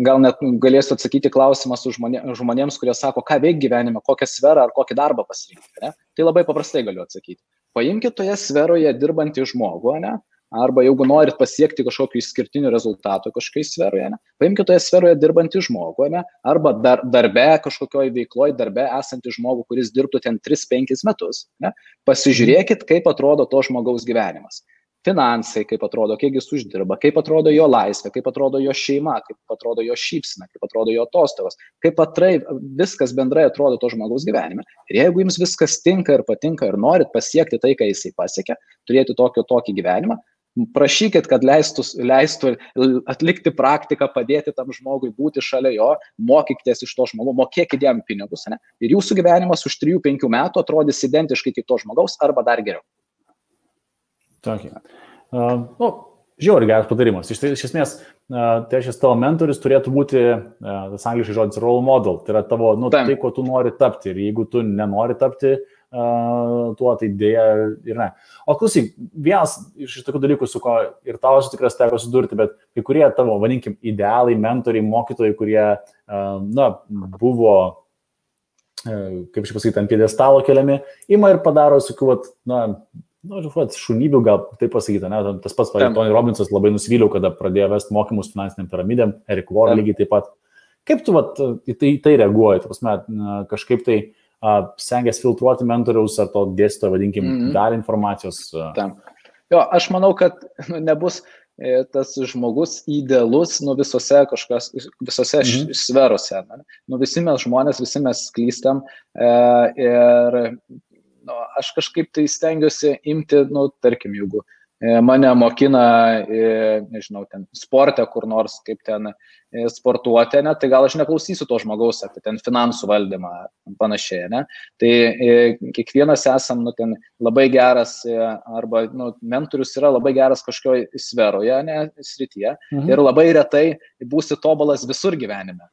gal net galėsiu atsakyti klausimą su žmonėms, kurie sako, ką veik gyvenime, kokią sferą ar kokį darbą pasirinkti. Ne? Tai labai paprastai galiu atsakyti. Paimkite toje sferoje dirbantį žmogų, ne? Arba jeigu norit pasiekti kažkokių išskirtinių rezultatų kažkokiai sferoje, ne? Paimkite toje sferoje dirbantį žmogų, ne? Arba darbe, kažkokioj veikloj darbe esantį žmogų, kuris dirbtų ten 3-5 metus. Ne? Pasižiūrėkit, kaip atrodo to žmogaus gyvenimas. Finansai, kaip atrodo, kiek jis uždirba, kaip atrodo jo laisvė, kaip atrodo jo šeima, kaip atrodo jo šypsena, kaip atrodo jo atostogos, kaip viskas bendrai atrodo to žmogaus gyvenime. Ir jeigu jums viskas tinka ir patinka ir norit pasiekti tai, ką jisai pasiekia, turėti tokį gyvenimą, prašykit, kad leistų atlikti praktiką, padėti tam žmogui, būti šalia jo, mokykitės iš to žmogaus, mokėkit jam pinigus, ne? Ir jūsų gyvenimas už 3-5 metų atrodys identiškai kaip to žmogaus arba dar geriau. Okay. Žiauriai geras patarimas. Iš esmės, tai šis tavo mentorius turėtų būti, tas angliškai žodis, role model. Tai yra tavo, tai, ko tu nori tapti. Ir jeigu tu nenori tapti tuo, tai dėja ir ne. O klausyk, vienas iš tokių dalykų, su ko ir tavo tikras teko sudurti, bet kai kurie tavo, vadinkim, idealai, mentoriai, mokytojai, kurie, buvo, kaip aš pasakyti, ant pjedestalo keliami, ima ir padaro tokių, šunybių, gal taip pasakyti, ne? Tas pats, Tony Robbinsas labai nusivyliau, kada pradėjo vesti mokymus finansiniam piramidėm, Eric Warren lygiai taip pat. Kaip tu į tai reaguoji? Kažkaip tai stengiasi filtruoti mentoriaus ar to dėstytojo, vadinkim, dalį informacijos? Jo, aš manau, kad nebus tas žmogus idealus visose sferose. Visi mes žmonės, visi mes klystam ir aš kažkaip tai stengiuosi imti, tarkim, jeigu mane mokina, nežinau, ten sporte kur nors, kaip ten sportuoti, ne, tai gal aš neklausysiu to žmogaus apie ten finansų valdymą panašiai, ne. Tai kiekvienas esam, ten labai geras arba, mentorius yra labai geras kažkokioje sferoje, ne, srityje ir labai retai būsi tobulas visur gyvenime.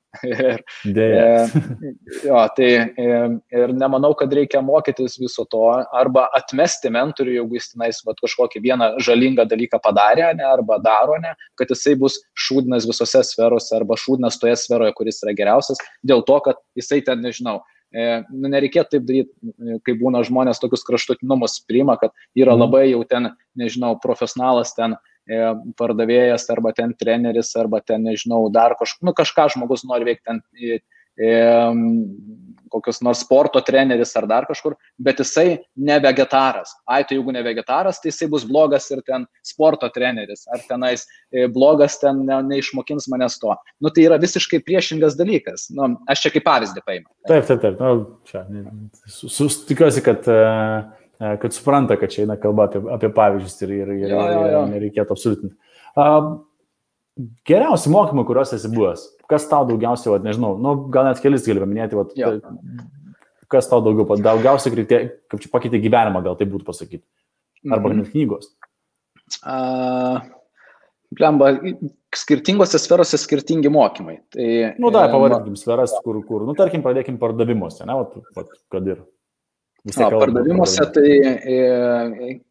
Ir nemanau, kad reikia mokytis viso to arba atmesti mentorių, jeigu jis tenais kažkokį vieną žalingą dalyką padarė, ne, arba daro, ne, kad jisai bus šūdinas visose sferose arba šūdinas toje sferoje, kuris yra geriausias, dėl to, kad jisai ten, nežinau, nereikėtų taip daryti, kai būna žmonės tokius kraštutinumus priima, kad yra labai jau ten, nežinau, profesionalas ten pardavėjas arba ten treneris arba ten, nežinau, dar kažką žmogus nori veikti ten kokios nors sporto treneris ar dar kažkur, bet jisai ne vegetaras. Tai jeigu ne vegetaras, tai jisai bus blogas ir ten sporto treneris, ar tenais blogas ten neišmokins manęs to. Tai yra visiškai priešingas dalykas. Aš čia kaip pavyzdį paimu. Taip. Tikiuosi, kad supranta, kad čia eina kalba apie pavyzdžius ir nereikėtų absoliutinti. Geriausi mokymai, kuriuos esi buvęs, kas tau daugiausiai, nežinau, gal net kelis gali paminėti, kas tau daugiausiai kaip čia pakeitė gyvenimą, gal tai būtų pasakyti, arba net knygos. Skirtingose sferose skirtingi mokymai. Pavadinkim sferas, kur, tarkim, pradėkim pardavimuose, ne, kad ir. Pardavimuose tai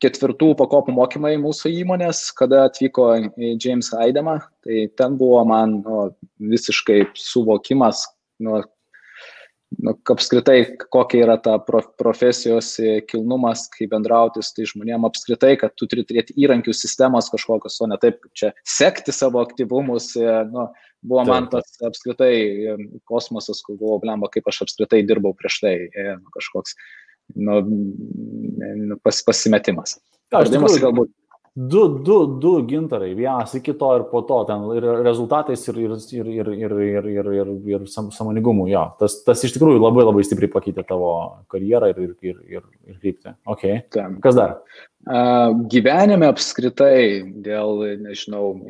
4 pakopų mokymai mūsų įmonės, kada atvyko James Haidema, tai ten buvo man visiškai suvokimas, apskritai, kokia yra ta profesijos kilnumas, kaip bendrauti su tai žmonėm, apskritai, kad tu turi turėti įrankių sistemas kažkokios, o ne taip, kaip čia sekti savo aktyvumus, buvo man tas apskritai kosmosas, kur buvo, kaip aš apskritai dirbau prieš tai, kažkoks pasimetimas. Galbūt Du gintarai, vienas iki to ir po to, ten ir rezultatais ir sąmoningumu, jo. Tas iš tikrųjų labai labai stipriai pakeitė tavo karjerą ir kryptį. Okay. Kas dar? Gyvenime apskritai dėl, nežinau,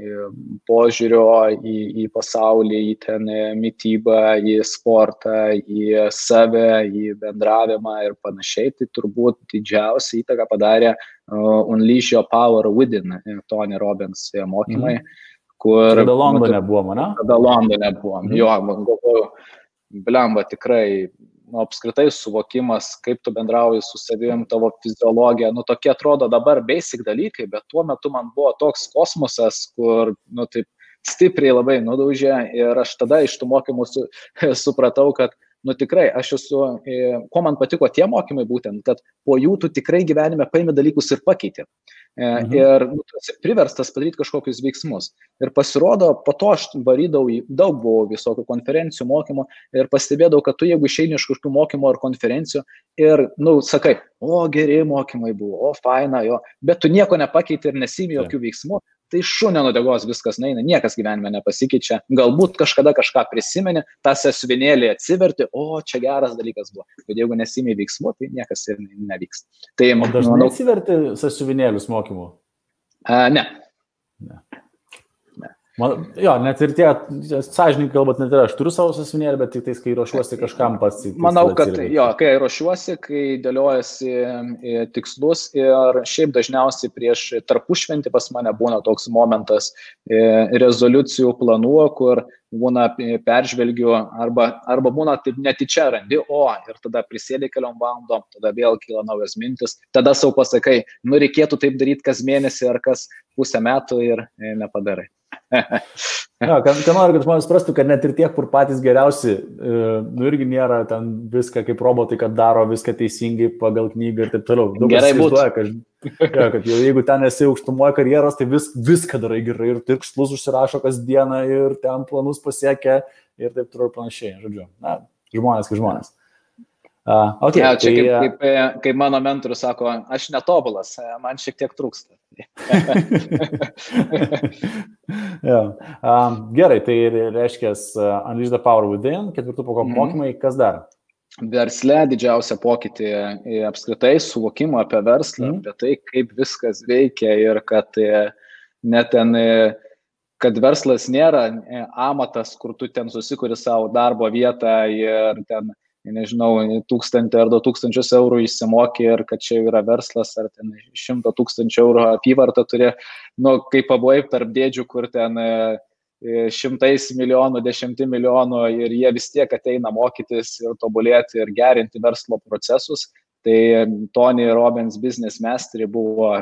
požiūrio į pasaulį, į ten mitybą, į sportą, į save, į bendravimą ir panašiai, tai turbūt didžiausia įtaka padarė Unleash Your Power Within, Tony Robbins mokymai, kur... Tada Londone buvom, ne? Tada Londone buvom, jo, man galvoju, blemba, tikrai apskritai suvokimas, kaip tu bendrauji su savim, tavo fiziologija, tokie atrodo dabar basic dalykai, bet tuo metu man buvo toks kosmosas, kur, taip stipriai labai nudaužė ir aš tada iš tų mokymų supratau, kad tikrai, aš esu, ko man patiko tie mokymai būtent, kad po jų tu tikrai gyvenime paimi dalykus ir pakeiti. Ir tu esi priverstas padaryti kažkokius veiksmus. Ir pasirodo, po to aš varydavau, daug buvo visokių konferencijų, mokymų ir pastebėdavau, kad tu jeigu išeini iš kažkokių mokymų ar konferencijų ir, sakai, geri mokymai buvo, faina, jo, bet tu nieko nepakeiti ir nesimi jokių veiksmų, tai šunio nudegos viskas neina, niekas gyvenime nepasikeičia. Galbūt kažkada kažką prisimeni, tą sąsiuvinėlį atsiverti, čia geras dalykas buvo. Bet jeigu nesimi veiksmų, tai niekas ir nevyks. Tai, o dažnai atsiverti sąsiuvinėlius mokymų? Ne. Net ir tie, sąžininkai kalbant, net ir aš turiu savo sąsiuvinėlį, bet tik tais, kai ruošiuosi kažkam pats. Manau, kad kai ruošiuosi, kai dėliojasi tikslus ir šiaip dažniausiai prieš tarpušventį pas mane būna toks momentas rezoliucijų planų, kur būna peržvelgiu arba būna taip netyčia randi, ir tada prisėdė keliom valandom, tada vėl kyla naujas mintis, tada sau pasakai, reikėtų taip daryti kas mėnesį ar kas pusę metų ir nepadarai. Ką noriu, kad žmonės suprastų, kad net ir tie, kur patys geriausi, irgi nėra ten viską kaip robotai, kad daro viską teisingai pagal knygą ir taip toliau. Gerai būtų. Kad jeigu ten esi aukštumoje karjeros, tai viską darai gerai ir tikslus užsirašo kasdieną ir ten planus pasiekia ir taip toliau panašiai. Žodžiu, žmonės kaip žmonės. Okay, čia kaip mano mentorius sako, aš netobulas, man šiek tiek trūksta. Gerai, tai reiškia Unleash the Power Within, 4 pakopų mokymai, kas dar? Versle didžiausia pokytį apskritai suvokimo apie verslą, apie tai, kaip viskas veikia ir kad net ten, kad verslas nėra amatas, kur tu ten susikuri savo darbo vietą ir ten nežinau, 1000 ar 2000 eurų išsimokė ir kad čia yra verslas, ar ten 100 000 eurų apyvartą turi, kaip pabuvai tarp dėdžių, kur ten 100 milijonų, 10 milijonų ir jie vis tiek ateina mokytis ir tobulėti ir gerinti verslo procesus. Tai Tony Robbins Business Mastery buvo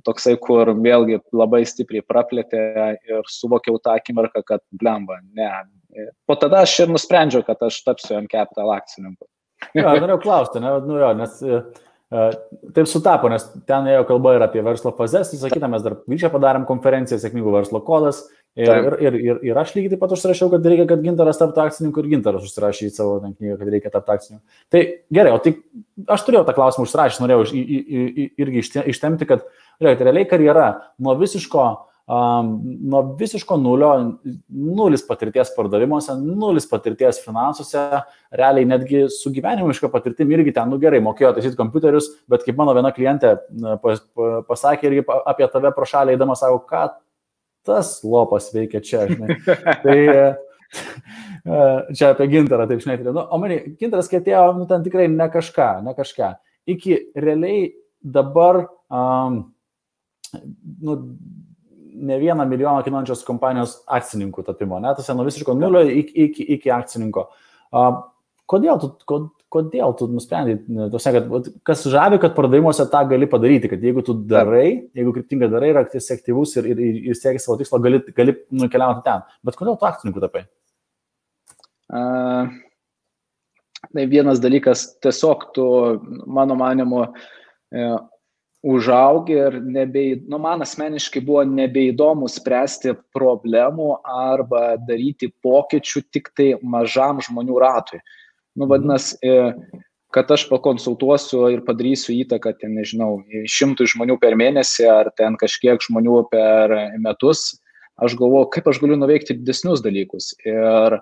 toksai, kur vėlgi labai stipriai praplėtė ir suvokiau tą akimirką, kad blemba, ne. Po tada aš ir nusprendžiau, kad aš tapsiu M-Capital akcininku. Norėjau klausti, nes taip sutapo, nes ten ėjo kalba ir apie verslo fazes, visą kitą mes dar Vyčia padarėm konferenciją, sėkmingų verslo kodas ir aš lygiai taip pat užsirašiau, kad reikia, kad Gintaras taptų akcininku ir Gintaras užsirašė į savo knygą, kad reikia tapti akcininku. Tai gerai, o tai aš turėjau tą klausimą užsirašęs, norėjau irgi ištemti, kad realiai karjera nuo visiško nulio, nulis patirties pardavimuose, nulis patirties finansuose, realiai netgi su gyvenimiška patirtim irgi ten, gerai, mokėjo taisyti kompiuterius, bet kaip mano viena klientė pasakė irgi apie tave pro šalį eidama, sako, ką tas lopas veikia čia, žinai. Tai čia apie Gintarą, taip žinai. O man, Gintaras, kai atėjo, ten tikrai ne kažką. Iki realiai dabar, ne 1 milijoną kainuojančios kompanijos akcininkų tapimo, tas nuo visiško nulio iki akcininko. Kodėl tu nusprendai, kad kas žavi, kad pardavimuose tą gali padaryti, kad jeigu tu darai, jeigu kryptingai darai ir esi aktyvus ir sieki savo tikslo, gali nukeliauti ten. Bet kodėl tu akcininkų tapai? Tai vienas dalykas, tiesiog tu, mano manimu, užaugi ir man asmeniškai buvo nebeįdomu spręsti problemų arba daryti pokyčių tik tai mažam žmonių ratui. Vadinasi, kad aš pakonsultuosiu ir padarysiu įtaką, ten, nežinau, 100 žmonių per mėnesį ar ten kažkiek žmonių per metus, aš galvoju, kaip aš galiu nuveikti didesnius dalykus. Ir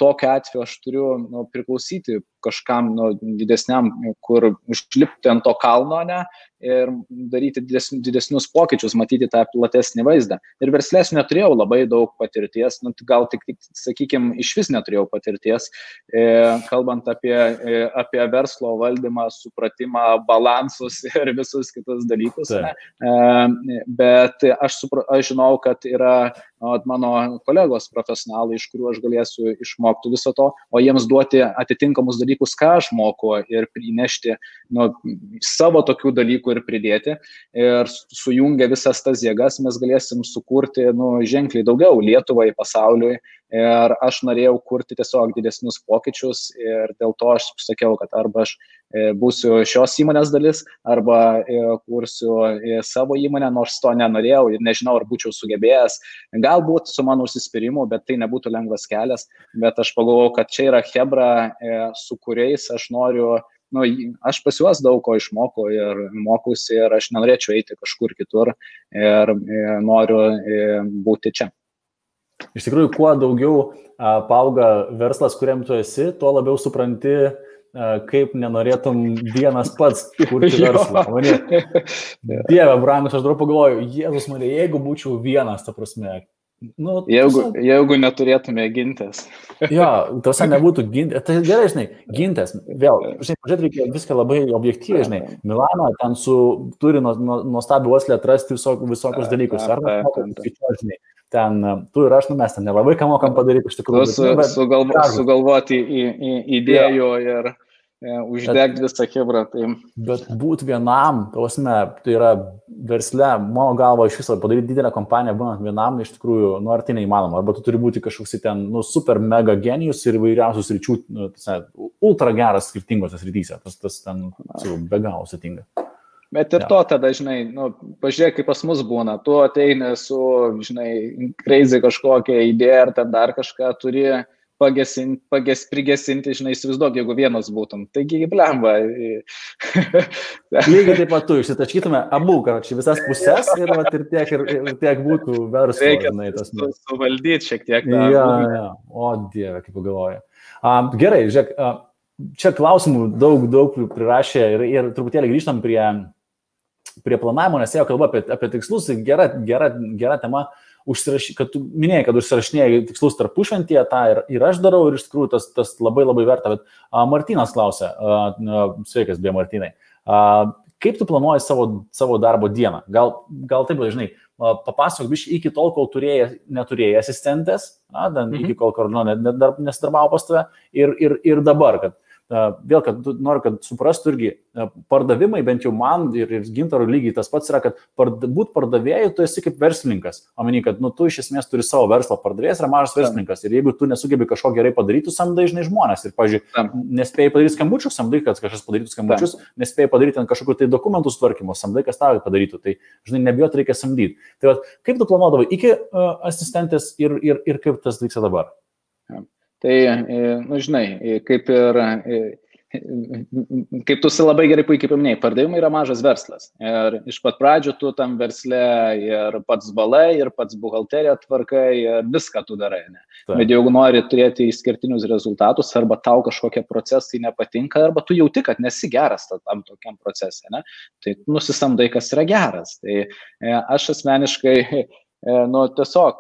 tokiu atveju aš turiu priklausyti kažkam didesniam, kur užlipti ant to kalno, ne, ir daryti didesnius pokyčius, matyti tą platesnį vaizdą. Ir verslės neturėjau labai daug patirties, gal tik sakykime, iš vis neturėjau patirties, kalbant apie verslo valdymą, supratimą, balansus ir visus kitus dalykus. Bet aš žinau, kad yra mano kolegos profesionalai, iš kurių aš galėsiu išmokti viso to, o jiems duoti atitinkamus dalykus, ką aš moku, ir prinešti savo tokių dalykų ir pridėti. Ir sujungę visas tas jėgas mes galėsim sukurti ženkliai daugiau Lietuvai, pasauliui. Ir aš norėjau kurti tiesiog didesnius pokyčius ir dėl to aš sakiau, kad arba aš būsiu šios įmonės dalis, arba kursiu savo įmonę, nors to nenorėjau ir nežinau, ar būčiau sugebėjęs. Galbūt su mano užsispyrimu, bet tai nebūtų lengvas kelias. Bet aš pagalvojau, kad čia yra chebra, su kuriais aš noriu, aš pas juos daug ko išmokau ir mokusi ir aš nenorėčiau eiti kažkur kitur ir noriu būti čia. Iš tikrųjų, kuo daugiau paauga verslas, kuriam tu esi, tuo labiau supranti, kaip nenorėtum vienas pats kurti verslą. Dieve, brangus, aš dar pagalvoju, Jėzus Marija, jeigu būčiau vienas, ta prasme. Jeigu neturėtume gintis. Jo, tose nebūtų gintis. Tai gerai, žinai, gintis. Vėl, pažiūrėt, reikia viską labai objektyviai, žinai. Milano ten turi nuostabių uoslę atrasti visokius dalykus. Ar žinai, ten tu ir aš, mes ten nelabai ką mokam padaryti iš tikrųjų. Sugalvoti idėjų ir uždegti visą chebrą. Tai... Bet būti vienam, tai yra versle, mano galva, iš viso padaryti didelę kompaniją, būnant vienam, iš tikrųjų, ar tai neįmanoma. Arba tu turi būti kažkoks ten, super mega genijus ir įvairiausius ryčių, ultra geras skirtingose srityse. Tas ten be galo sudėtinga. Bet ir to tada, žinai, pažiūrėk, kaip pas mus būna. Tu ateini su, žinai, crazy kažkokią idėją ar ten dar kažką turi prigesinti, žinai, įsivaizduok, jeigu vienas būtum. Taigi, blemba. Lygiai taip pat tu išsitaškytume abu, karočiui, visas pusės ir tiek būtų verslo. Reikia suvaldyti šiek tiek. Ja. O, Dieve, kaip pagalvoju. Gerai, žiūrėk, čia klausimų daug prirašė ir truputėlį grįžtam prie planavimo, nes jau kalba apie tikslus, gera tema. Kad tu minėjai, kad užsirašinėjai tikslus tarpušventyje, tą ir aš darau ir iš tikrųjų tas labai verta. Bet Martynas klausia, sveikas, beje, Martynai, kaip tu planuoji savo darbo dieną? Gal taip, žinai, papasakok biškį iki tol, kol neturėjai asistentės, iki kol nesidarbavo pas tave ir dabar, kad vėl, kad noriu, kad suprastų irgi pardavimai, bent jau man ir Gintarui lygiai tas pats yra, kad būt pardavėjų, tu esi kaip verslininkas. Omeny, kad tu iš esmės turi savo verslą, pardavėjas yra mažas verslininkas ir jeigu tu nesugebi kažko gerai padaryti, samdai žinai žmonės ir, pavyzdžiui, nespėjai padaryti skambučius, samdai, kad kažkas padarytų skambučius, nespėjai padaryti ant kažkokių tai dokumentų sutvarkymo, samdai, kas tau padarytų, tai žinai, nebijot reikia samdyti. Tai va, kaip tu planuodavai iki asistentės ir kaip tas vyksta dabar? Tai, žinai, kaip tu labai gerai puikiai paminėjai, pardavimai yra mažas verslas. Ir iš pat pradžių tu tam versle ir pats balai, ir pats buhalteriją tvarkai, ir viską tu darai. Ne? Bet jeigu nori turėti išskirtinius rezultatus, arba tau kažkokie procesai nepatinka, arba tu jauti, kad nesi geras tam tokiam procese, ne? Tai nusisamdai, kas yra geras. Tai aš asmeniškai... tiesiog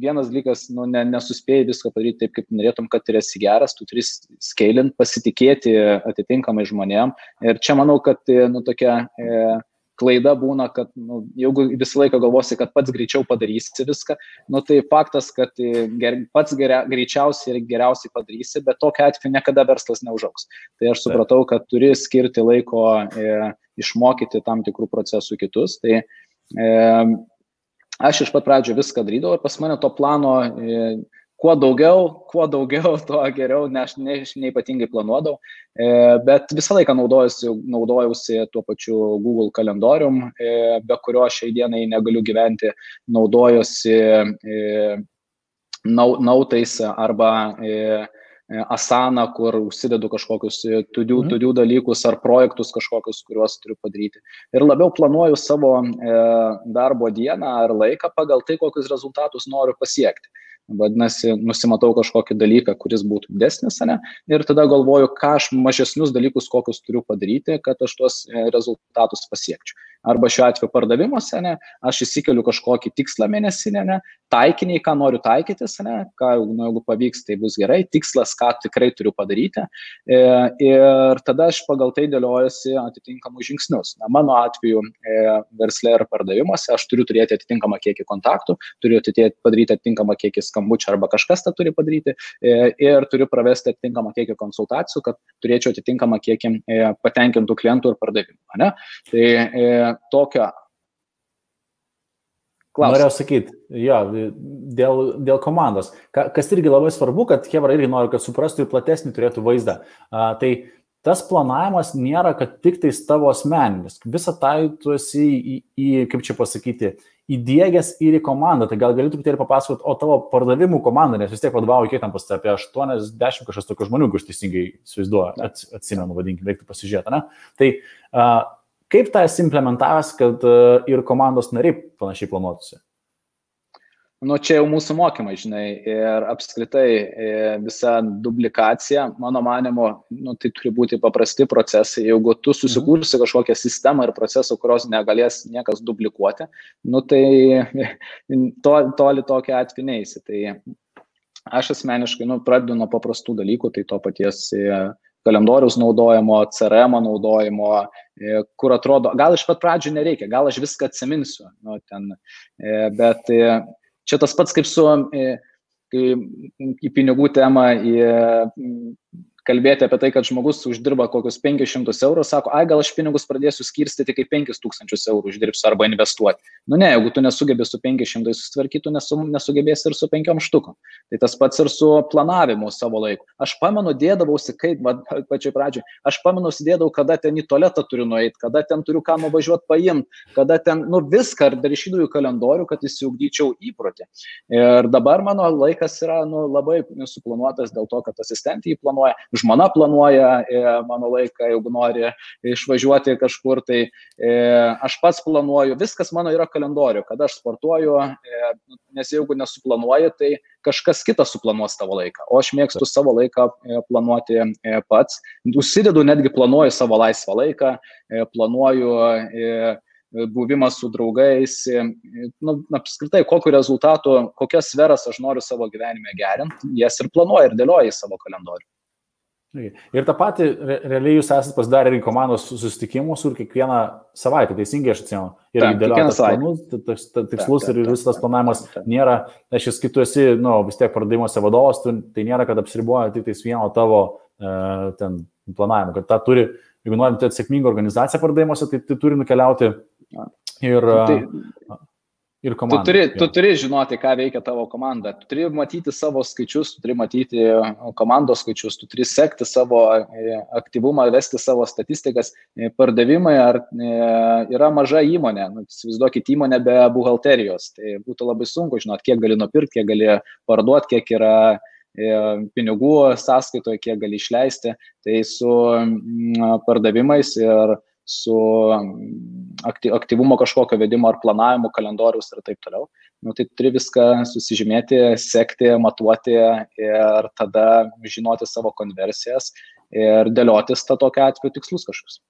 vienas dalykas, nesuspėjai viską padaryti taip, kaip norėtum, kad ir esi geras, tu turi scalinti, pasitikėti atitinkamai žmonėm. Ir čia manau, kad tokia klaida būna, kad jeigu visą laiką galvosi, kad pats greičiau padarysi viską, tai faktas, kad pats greičiausiai ir geriausiai padarysi, bet tokia atveju niekada verslas neužaugs. Tai aš supratau, kad turi skirti laiko išmokyti tam tikrų procesų kitus. Tai aš iš pat pradžio viską darydavau ir pas mane to plano kuo daugiau, to geriau, ne aš neypatingai planuodavau, bet visą laiką naudojausi tuo pačiu Google kalendorium, be kurio šiai dienai negaliu gyventi, naudojuosi nautais arba Asana, kur užsidedu kažkokius to-do dalykus ar projektus kažkokius, kuriuos turiu padaryti. Ir labiau planuoju savo darbo dieną ar laiką pagal tai, kokius rezultatus noriu pasiekti. Vadinasi, nusimatau kažkokį dalyką, kuris būtų didesnis, ne? Ir tada galvoju, ką aš mažesnius dalykus, kokius turiu padaryti, kad aš tuos rezultatus pasiekčiau. Arba šiuo atveju pardavimuose, ne? Aš įsikeliu kažkokį tikslą mėnesinę, ne? Taikiniai, ką noriu taikytis, ne? Jeigu pavyks, tai bus gerai, tikslas, ką tikrai turiu padaryti. Ir tada aš pagal tai dėliojuosi atitinkamus žingsnius. Na, mano atveju versle ir pardavimuose aš turiu turėti atitinkamą kiekį kontaktų, turiu padaryti atitinkamą kiekį skambučių arba kažkas tą turi padaryti ir turiu pravesti atitinkamą kiekį konsultacijų, kad turėčiau atitinkamą kiekį patenkintų klientų ir pardavimų. Ne? Tai tokio klausimą. Norėjau sakyti, jo, dėl komandos. Kas irgi labai svarbu, kad Hebra irgi nori, kad suprastų ir platesnį turėtų vaizdą. Tai tas planavimas nėra, kad tik tais tavo asmeninis. Visą tai tu esi kaip čia pasakyti, įdiegęs ir į komandą. Tai gal gali truputėlį papasakoti, o tavo pardavimų komanda, nes vis tiek vadovauju kiek tam pas apie 80 kažkas tokių žmonių, kur aš teisingai įsivaizduoju, atsimenu, vadinkim, reiktų pasižiūrėti, ne? Tai kaip tą esi implementavęs, kad ir komandos nariai panašiai planuotųsi? Nu, čia jau mūsų mokymai, žinai, ir apskritai visa duplikacija, mano manimo, tai turi būti paprasti procesai. Jeigu tu susikursi kažkokią sistemą ir procesą, kurios negalės niekas duplikuoti, tai toli tokia atveju neisi. Tai aš asmeniškai pradedu nuo paprastų dalykų, tai to paties kalendoriaus naudojimo, CRM naudojimo, kur atrodo, gal iš pat pradžių nereikia, gal aš viską atsiminsiu, bet čia tas pats kaip su į pinigų temą, kalbėti apie tai, kad žmogus uždirba kokius 500 eurų, sako, gal aš pinigus pradėsiu skirstyti, kai 5000 eurų uždirbsiu arba investuoti. Ne, jeigu tu nesugebėsi su 500 susitvarkyti, tu nesugebėsi ir su 5 štukom. Tai tas pats ir su planavimu savo laiku. Aš pamenu, dėdavausi, kaip pačioj pradžioj, aš pamenu, sėdėdavau, kada ten į tualetą turiu nueiti, kada ten turiu ką nuvažiuoti paimti, kada ten, viską, ar dar išydavau į kalendorių, kad įsiugdyčiau įprotį. Ir dabar mano laikas yra labai suplanuotas dėl to, kad asistentė jį planuoja. Žmona planuoja mano laiką, jeigu nori išvažiuoti kažkur, tai aš pats planuoju, viskas mano yra kalendorių, kada aš sportuoju, nes jeigu nesuplanuoji, tai kažkas kitas suplanuos tavo laiką, o aš mėgstu savo laiką planuoti pats, užsidedu, netgi planuoju savo laisvą laiką, planuoju buvimą su draugais, apskritai, kokiu rezultatu, kokias sferas aš noriu savo gyvenime gerinti, jas ir planuoju ir dėlioju į savo kalendorių. Ir tą patį, realiai jūs esate pasidarę ir komandos susitikimus ir kiekvieną savaitę, teisingai aš atsimenu. Ir dėliotas planus, tikslus ir visas tas planavimas nėra, kai tu esi, vis tiek pardavimuose vadovas, tai nėra, kad apsiriboja tik tais vieno tavo planavimo, kad tą turi, jeigu norim turėti sėkmingą organizaciją pardavimuose, tai turi nukeliauti ir komanda. Tu turi žinoti, ką veikia tavo komanda. Tu turi matyti savo skaičius, tu turi matyti komandos skaičius, tu turi sekti savo aktyvumą, vesti savo statistikas. Pardavimai yra maža įmonė. Įsivaizduokit įmonę be buhalterijos. Tai būtų labai sunku žinoti, kiek gali nupirkti, kiek gali parduoti, kiek yra pinigų sąskaitoje, kiek gali išleisti. Tai su pardavimais ir su aktyvumo kažkokio vedimo ar planavimo kalendorius ir taip toliau. Tai turi viską susižymėti, sekti, matuoti ir tada žinoti savo konversijas ir dėliotis tokiu atveju tikslus kažkokius.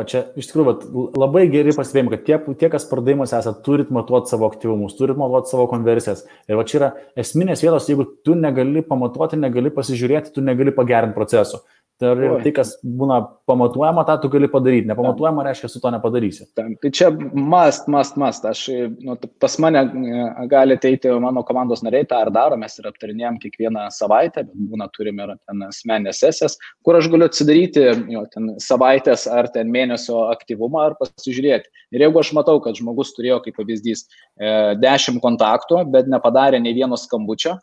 Čia iš tikrųjų labai geri pastebėjimai, kad tie, kas pardavimuose esate, turit matuoti savo aktyvumus, turit matuoti savo konversijas. Ir čia yra esminės vietos, jeigu tu negali pamatuoti, negali pasižiūrėti, tu negali pagerinti procesų. Tai, kas būna pamatuojama, tą tu gali padaryti. Nepamatuojama reiškia, su to nepadarysi. Tai čia must. Aš, pas mane gali ateiti mano komandos nariai, tą ar daro, mes ir aptarinėjom kiekvieną savaitę, bet būna turime ir ten asmeninės sesijas, kur aš galiu atsidaryti ten savaitės ar ten mėnesio aktyvumą ar pasižiūrėti. Ir jeigu aš matau, kad žmogus turėjo, kaip pavyzdys, 10 kontaktų, bet nepadarė nei vieno skambučio,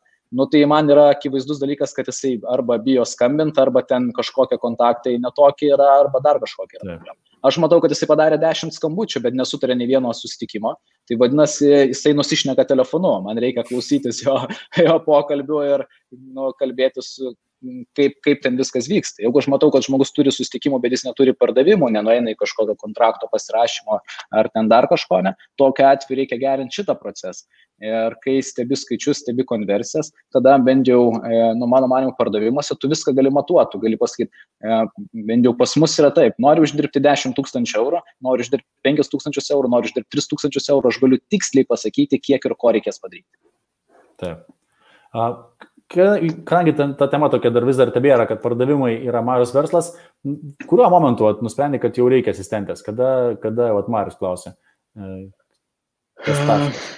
tai man yra akivaizdus dalykas, kad jisai arba bijo skambinti, arba ten kažkokie kontaktai netokie yra, arba dar kažkokie yra problema. Aš matau, kad jisai padarė 10 skambučių, bet nesutarė nei vieno susitikimo. Tai vadinasi, jisai nusišneka telefonu. Man reikia klausytis jo pokalbių ir kalbėtis kaip ten viskas vyksta. Jeigu aš matau, kad žmogus turi susitikimų, bet jis neturi pardavimų, nenueina į kažkokio kontrakto pasirašymo ar ten dar kažko, ne, tokiu atveju reikia gerinti šitą procesą. Ir kai stebi skaičius, stebi konversijas, tada bent jau, mano manymu, pardavimuose tu viską gali matuoti, tu gali pasakyti, bent jau pas mus yra taip, noriu uždirbti 10 000 eurų, noriu uždirbti 5 000 eurų, noriu uždirbti 3 000 eurų, aš galiu tiksliai pasakyti, kiek ir ko reikės padaryti. Taip. Kadangi ta tema tokia vis dar tebėra, kad pardavimai yra mažas verslas, kuriuo momentu nusprendė, kad jau reikia asistentės? Kada Marius klausė? Kas taškas?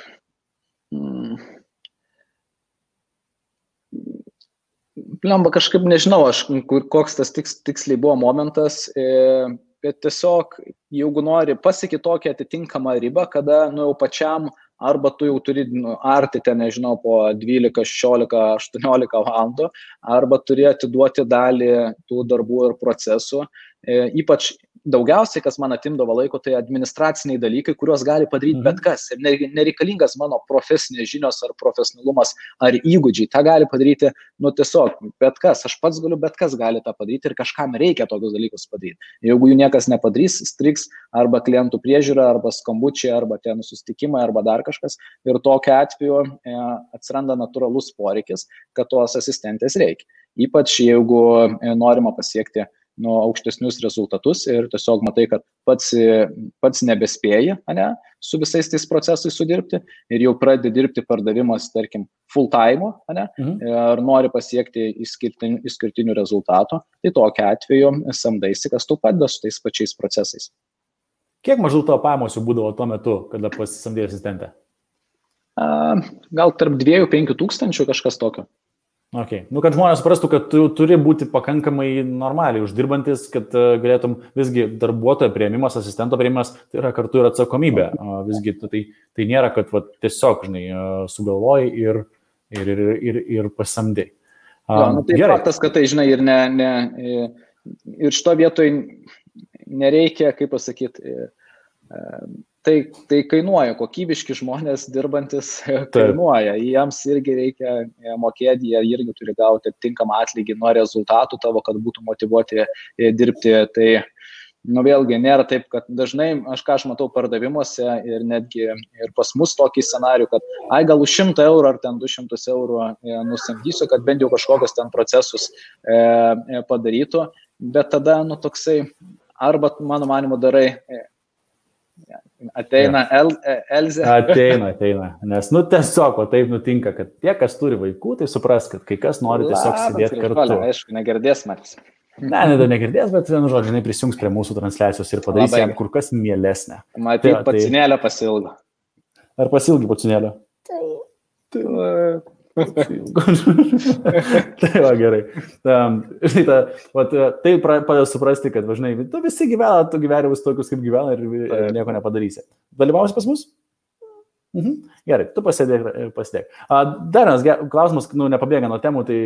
Lemba, kažkaip nežinau, koks tas tiksliai buvo momentas, bet tiesiog, jeigu nori pasiekti tokią atitinkamą ribą, kada jau pačiam arba tu jau turi arti ten, nežinau, po 12, 16, 18 valandų, arba turi atiduoti dalį tų darbų ir procesų. Ypač daugiausiai, kas man atimdavo laiko, tai administraciniai dalykai, kuriuos gali padaryti bet kas. Ir nereikalingas mano profesinės žinios ar profesionalumas ar įgūdžiai. Ta gali padaryti, tiesiog bet kas. Aš pats galiu, bet kas gali tą padaryti ir kažkam reikia tokius dalykus padaryti. Jeigu jų niekas nepadarys, striks arba klientų priežiūra, arba skambučiai, arba ten susitikimai, arba dar kažkas. Ir tokiu atveju atsiranda natūralus poreikis, kad tos asistentės reikia. Ypač jeigu norima pasiekti aukštesnius rezultatus ir tiesiog matai, kad pats nebespėji, su visais tais procesais sudirbti ir jau pradedi dirbti pardavimas, tarkim, full time, ir nori pasiekti išskirtinių rezultatų, tai tokiu atveju samdaisi, kas tau padeda su tais pačiais procesais. Kiek maždaug tavo pajamos jau būdavo tuo metu, kada pasisamdėjai asistentę? Gal tarp 2-5 tūkstančių kažkas tokio. Okay. Kad žmonės suprastų, kad tu turi būti pakankamai normaliai uždirbantis, kad galėtum visgi darbuotojo priėmimas, asistento priėmimas, tai yra kartu ir atsakomybė. Visgi tai nėra, kad tiesiog, sugalvoji ir pasamdai. Tai faktas, kad tai, ir šito vietoj nereikia, kaip pasakyti, tai kainuoja, kokybiški žmonės dirbantis kainuoja, jiems irgi reikia mokėti, jie irgi turi gauti tinkamą atlygį nuo rezultatų tavo, kad būtų motyvuoti dirbti. Tai, vėlgi, nėra taip, kad dažnai, aš matau pardavimuose ir netgi ir pas mus tokį scenarių, kad gal už 100 eurų ar ten 200 eurų nusamdysiu, kad bent jau kažkokius ten procesus padarytų, bet tada, toksai, arba, mano manimu, darai ateina Elzė. Ateina, nes tiesiog taip nutinka, kad tie, kas turi vaikų, tai supras, kad kai kas nori tiesiog sėdėti kartu. Aišku, negirdės matys. Negirdės, bet žodžiu, prisijungs prie mūsų transliacijos ir padarys jam kur kas mielesnę. Matyt, pacinėlę pasilgo. Ar pasilgi pacinėlę? Tai va, gerai. Tai padeda suprasti, kad tu visi gyvena, tu gyvenimus tokius, kaip gyvena ir nieko nepadarysi. Dalyvausi pas mus? Gerai, tu pasėdėk. Dar vienas klausimas, nepabėga nuo temų, tai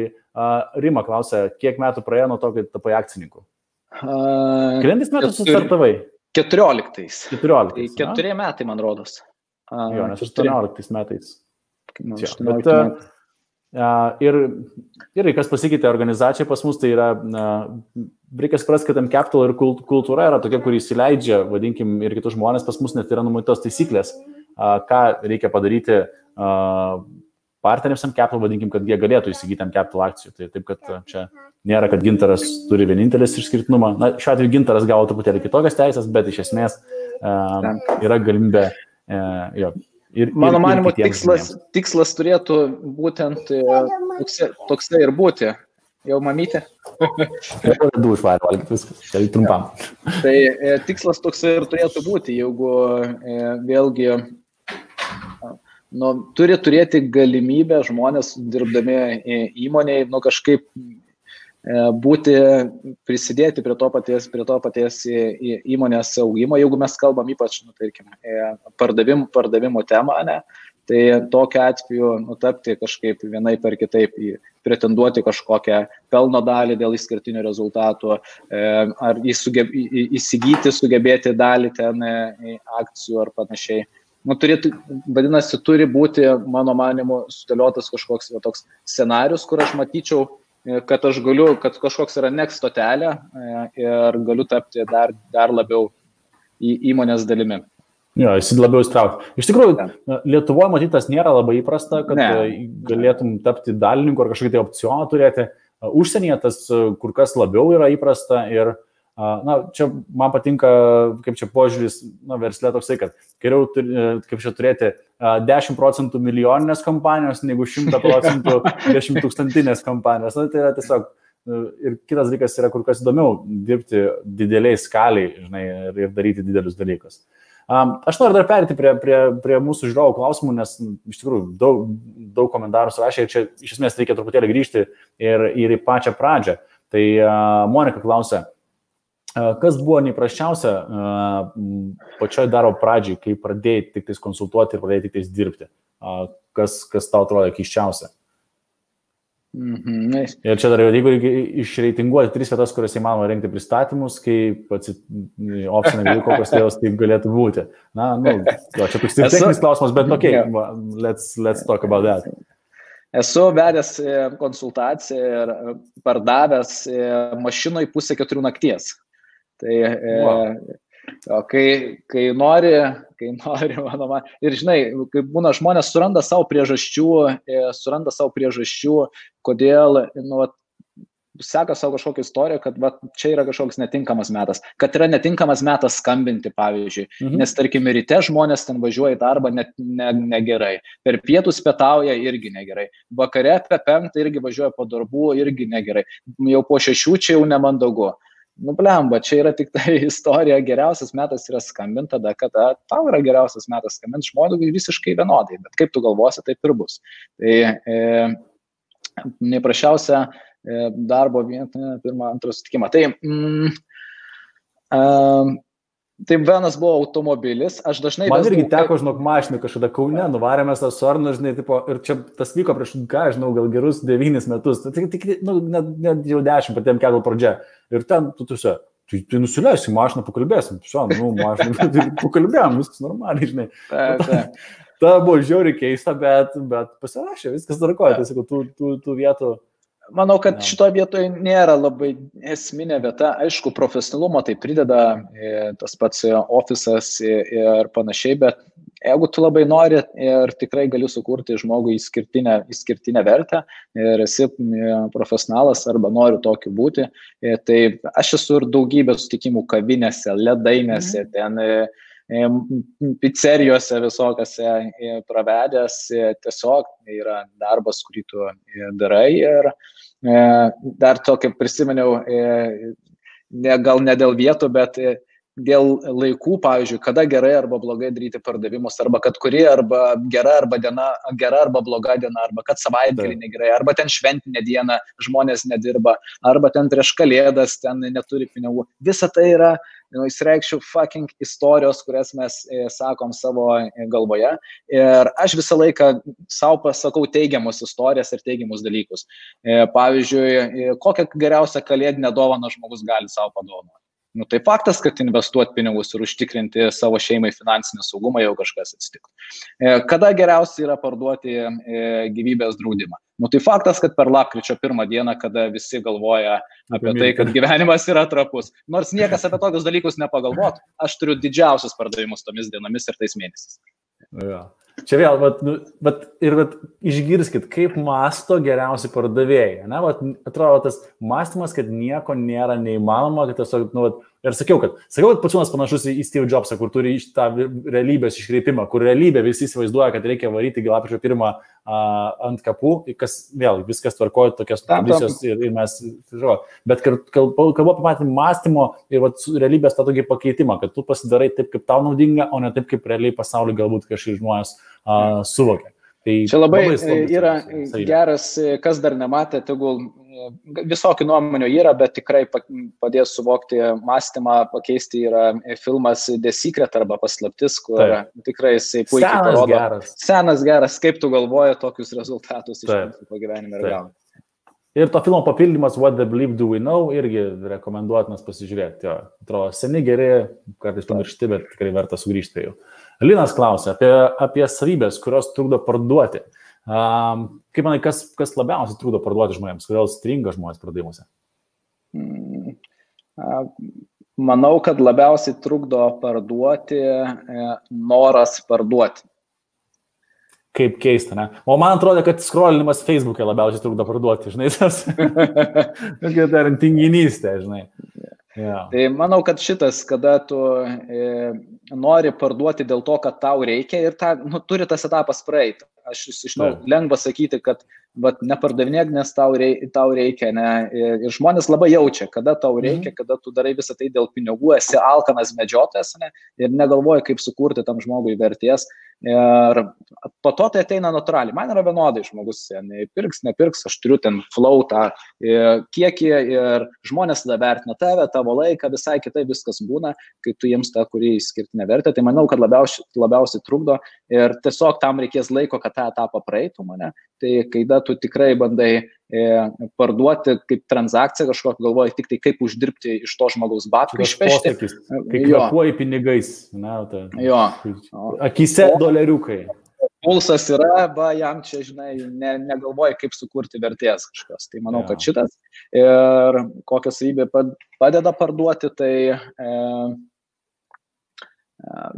Rima klausia, kiek metų praėjo nuo to, kai tapai akcininku? Kelintais metais sustartavai? 14. 4 metai, man rodos. Jo, nes 18 metais. Ir kas pasikeitė organizacijai pas mus, tai yra, reikia suprasti, kad M-Capital ir kultūra yra tokia, kuri įsileidžia, vadinkim, ir kitus žmonės, pas mus net yra numatytos taisyklės, ką reikia padaryti partneriams M-Capital, vadinkim, kad jie galėtų įsigyti M-Capital akcijų. Tai taip, kad čia nėra, kad Gintaras turi vienintelis išskirtinumą. Šiuo atveju Gintaras gavo truputėlį kitokias teisės, bet iš esmės yra galimybė Mano manimo, tikslas turėtų būtent toksai ir būti. Jau mamytė? Du išvarė valgyti viskas, tai trumpam. Tai tikslas toksai ir turėtų būti, jeigu vėlgi turi turėti galimybę žmonės dirbdami įmonėje, kažkaip prisidėti prie to paties įmonės augimo, jeigu mes kalbam ypač, tarkim, pardavimo temą, tai tokiu atveju tapti kažkaip vienaip ar kitaip, pretenduoti kažkokią pelno dalį dėl išskirtinių rezultatų, ar įsigyti, sugebėti dalį ten akcijų ar panašiai. Vadinasi, turi būti, mano manimu, sudėliotas kažkoks toks scenarius, kur aš matyčiau kad aš galiu, kad kažkoks yra next stotelė ir galiu tapti dar labiau įmonės dalimi. Jo, jis labiau įstraukti. Iš tikrųjų, Lietuvoje matytas nėra labai įprasta, kad galėtum tapti dalininku ar kažkokį tai opcioną turėti. Užsienyje tas kur kas labiau yra įprasta ir čia man patinka, kaip čia požiūris, versle toksai, kad geriau kaip čia turėti 10% milijoninės kompanijos, negu 100% 10 tūkstantinės kompanijos. Tai yra tiesiog, ir kitas dalykas yra kur kas įdomiau dirbti dideliai skaliai, žinai, ir daryti didelius dalykus. Aš noriu dar perėti prie mūsų žiūrovų klausimų, nes iš tikrųjų daug komentarų surašė ir čia iš esmės reikia truputėlį grįžti ir į pačią pradžią. Tai Monika klausia, kas buvo neįprasčiausia pačioj darbo pradžiai, kai pradėjai tik tais konsultuoti ir pradėjai tik tais dirbti? Kas tau atrodo keisčiausia? Ir čia dar jeigu reikia išreitinguoti 3 vietas, kuriuose įmanoma rengti pristatymus, kaip opcinė gali kokios tėvos taip galėtų būti. Čia toks techninis klausimas, bet let's talk about that. Esu vedęs konsultaciją ir pardavęs mašinoj 3:30 nakties. Tai kai nori, manoma, ir žinai, kai būna žmonės suranda savo priežasčių, kodėl, seka savo kažkokią istoriją, kad čia yra kažkoks netinkamas metas, kad yra netinkamas metas skambinti, pavyzdžiui, nes tarkim ryte žmonės ten važiuoja į darbą negerai, per pietus pietauja irgi negerai, vakare apie 5 irgi važiuoja po darbų irgi negerai, jau po 6 čia jau nemandagu. Blemba, čia yra tik tai istorija, geriausias metas yra skambinti tada, kada tau yra geriausias metas skambinti, žmogui visiškai vienodai, bet kaip tu galvosi, taip ir bus. Tai neprašiausia darbo vietą, pirmą, antrą sutikimą. Tai vienas buvo automobilis, aš dažnai... Man irgi teko, žinok, mašinį kažkada Kaune, nuvarėmės tą Sorną, žinai, ir čia tas vyko prieš, žinau, gal gerus 9 metus, net jau 10, patėm kelio pradžia. Ir ten, tai nusileisi mašiną, pakalbėsim, mašiną, pakalbėjom, viskas normaliai, žinai. Ta buvo žiauriai keista, bet pasirašė, viskas tvarkoja, tai sakau, tų vietų... Manau, kad šitoje vietoje nėra labai esminė vieta. Aišku, profesionalumo tai prideda tas pats ofisas ir panašiai, bet jeigu tu labai nori ir tikrai gali sukurti žmogui išskirtinę vertę ir esi profesionalas arba nori tokiu būti, tai aš esu ir daugybę sutikimų kavinėse, ledainėse, ten pizzerijose visokiose pravedęs, tiesiog yra darbas, kurį tu darai ir dar tokį prisiminiau, gal ne dėl vietų, bet dėl laikų, pavyzdžiui, kada gerai arba blogai daryti pardavimus, arba kad kuri arba gera arba bloga diena, arba kad savaitgalį negerai, arba ten šventinė diena žmonės nedirba, arba ten prieš kalėdas ten neturi pinigų. Visa tai yra, įsireikščiau, fucking istorijos, kurias mes sakom savo galvoje. Ir aš visą laiką savo pasakau teigiamus istorijas ir teigiamus dalykus. Pavyzdžiui, kokią geriausią kalėdinę dovaną žmogus gali savo padovanoti. Tai faktas, kad investuoti pinigus ir užtikrinti savo šeimai finansinį saugumą, jau kažkas atsitiktų. Kada geriausia yra parduoti gyvybės draudimą? Tai faktas, kad per lapkričio 1 dieną, kada visi galvoja apie tai, kad gyvenimas yra trapus. Nors niekas apie tokius dalykus nepagalvotų, aš turiu didžiausius pardavimus tomis dienomis ir tais mėnesiais. Ja. Čia vėl, išgirskit, kaip mąsto geriausi pardavėjai. Atrodo, tas mąstymas, kad nieko nėra neįmanoma, kad tiesiog, ir sakiau, kad Pociūnas panašus į Steve Jobsą, kur turi tą realybės iškreipimą, kur realybė visi įsivaizduoja, kad reikia varyti lapkričio 1 ant kapų, kas vėl viskas tvarkoja tokias tradicijos ir mes, bet kalbu apie patį mąstymo ir realybės tą tokį pakeitimą, kad tu pasidarai taip, kaip tau naudinga, o ne taip, kaip realiai pasaulį galbūt kažkaip žmonės suvokia. Tai čia labai yra geras, kas dar nematė, tegul visokių nuomonių yra, bet tikrai padės suvokti mąstymą, pakeisti yra filmas The Secret arba Paslaptis, kur tikrai jisai puikiai parodo. Senas geras, kaip tu galvoji tokius rezultatus iš principo gyvenime ir gauni. Ir to filmo papildymas What the Bleep Do We Know irgi rekomenduotinas pasižiūrėti. Atrodo, seni geri, kartais pamiršti, bet tikrai verta sugrįžti prie jų. Linas klausia apie savybės, kurios trukdo parduoti. Kaip manai, kas labiausiai trūdo parduoti žmonėms? Kodėl stringa žmonės pardavimuose? Manau, kad labiausiai trukdo parduoti noras parduoti. Kaip keista, ne? O man atrodo, kad scrollinimas Facebook'e labiausiai trukdo parduoti, žinai, tas dar tinginystė, žinai. Yeah. Tai manau, kad šitas, kada tu nori parduoti dėl to, kad tau reikia ir turi tas etapas praeiti. Aš žinau, lengva sakyti, kad nepardavinėk, nes tau reikia. Ne? Ir žmonės labai jaučia, kada tau reikia, kada tu darai visą tai dėl pinigų, esi alkanas medžiotojas, ne? Ir negalvoji, kaip sukurti tam žmogui vertės. Ir po to tai ateina natūraliai. Man yra vienodai žmogus, pirks, nepirks, aš turiu ten flow tą kiekį ir žmonės tada vertina tave, tavo laiką, visai kitai viskas būna, kai tu jiems tą, kurį skirtinę vertę. Tai manau, kad labiausiai trukdo ir tiesiog tam reikės laiko, kad tą etapą praeitų mane. Tai kai tu tikrai bandai parduoti kaip transakciją kažkokią, galvoji tik tai kaip uždirbti iš to žmogaus batkų išpešti. Kai kvepuoji pinigais. Akise doleriukai. Pulsas yra, jam čia, žinai, negalvoji kaip sukurti vertės kažkas. Tai manau, kad šitas. Ir kokią savybę padeda parduoti, tai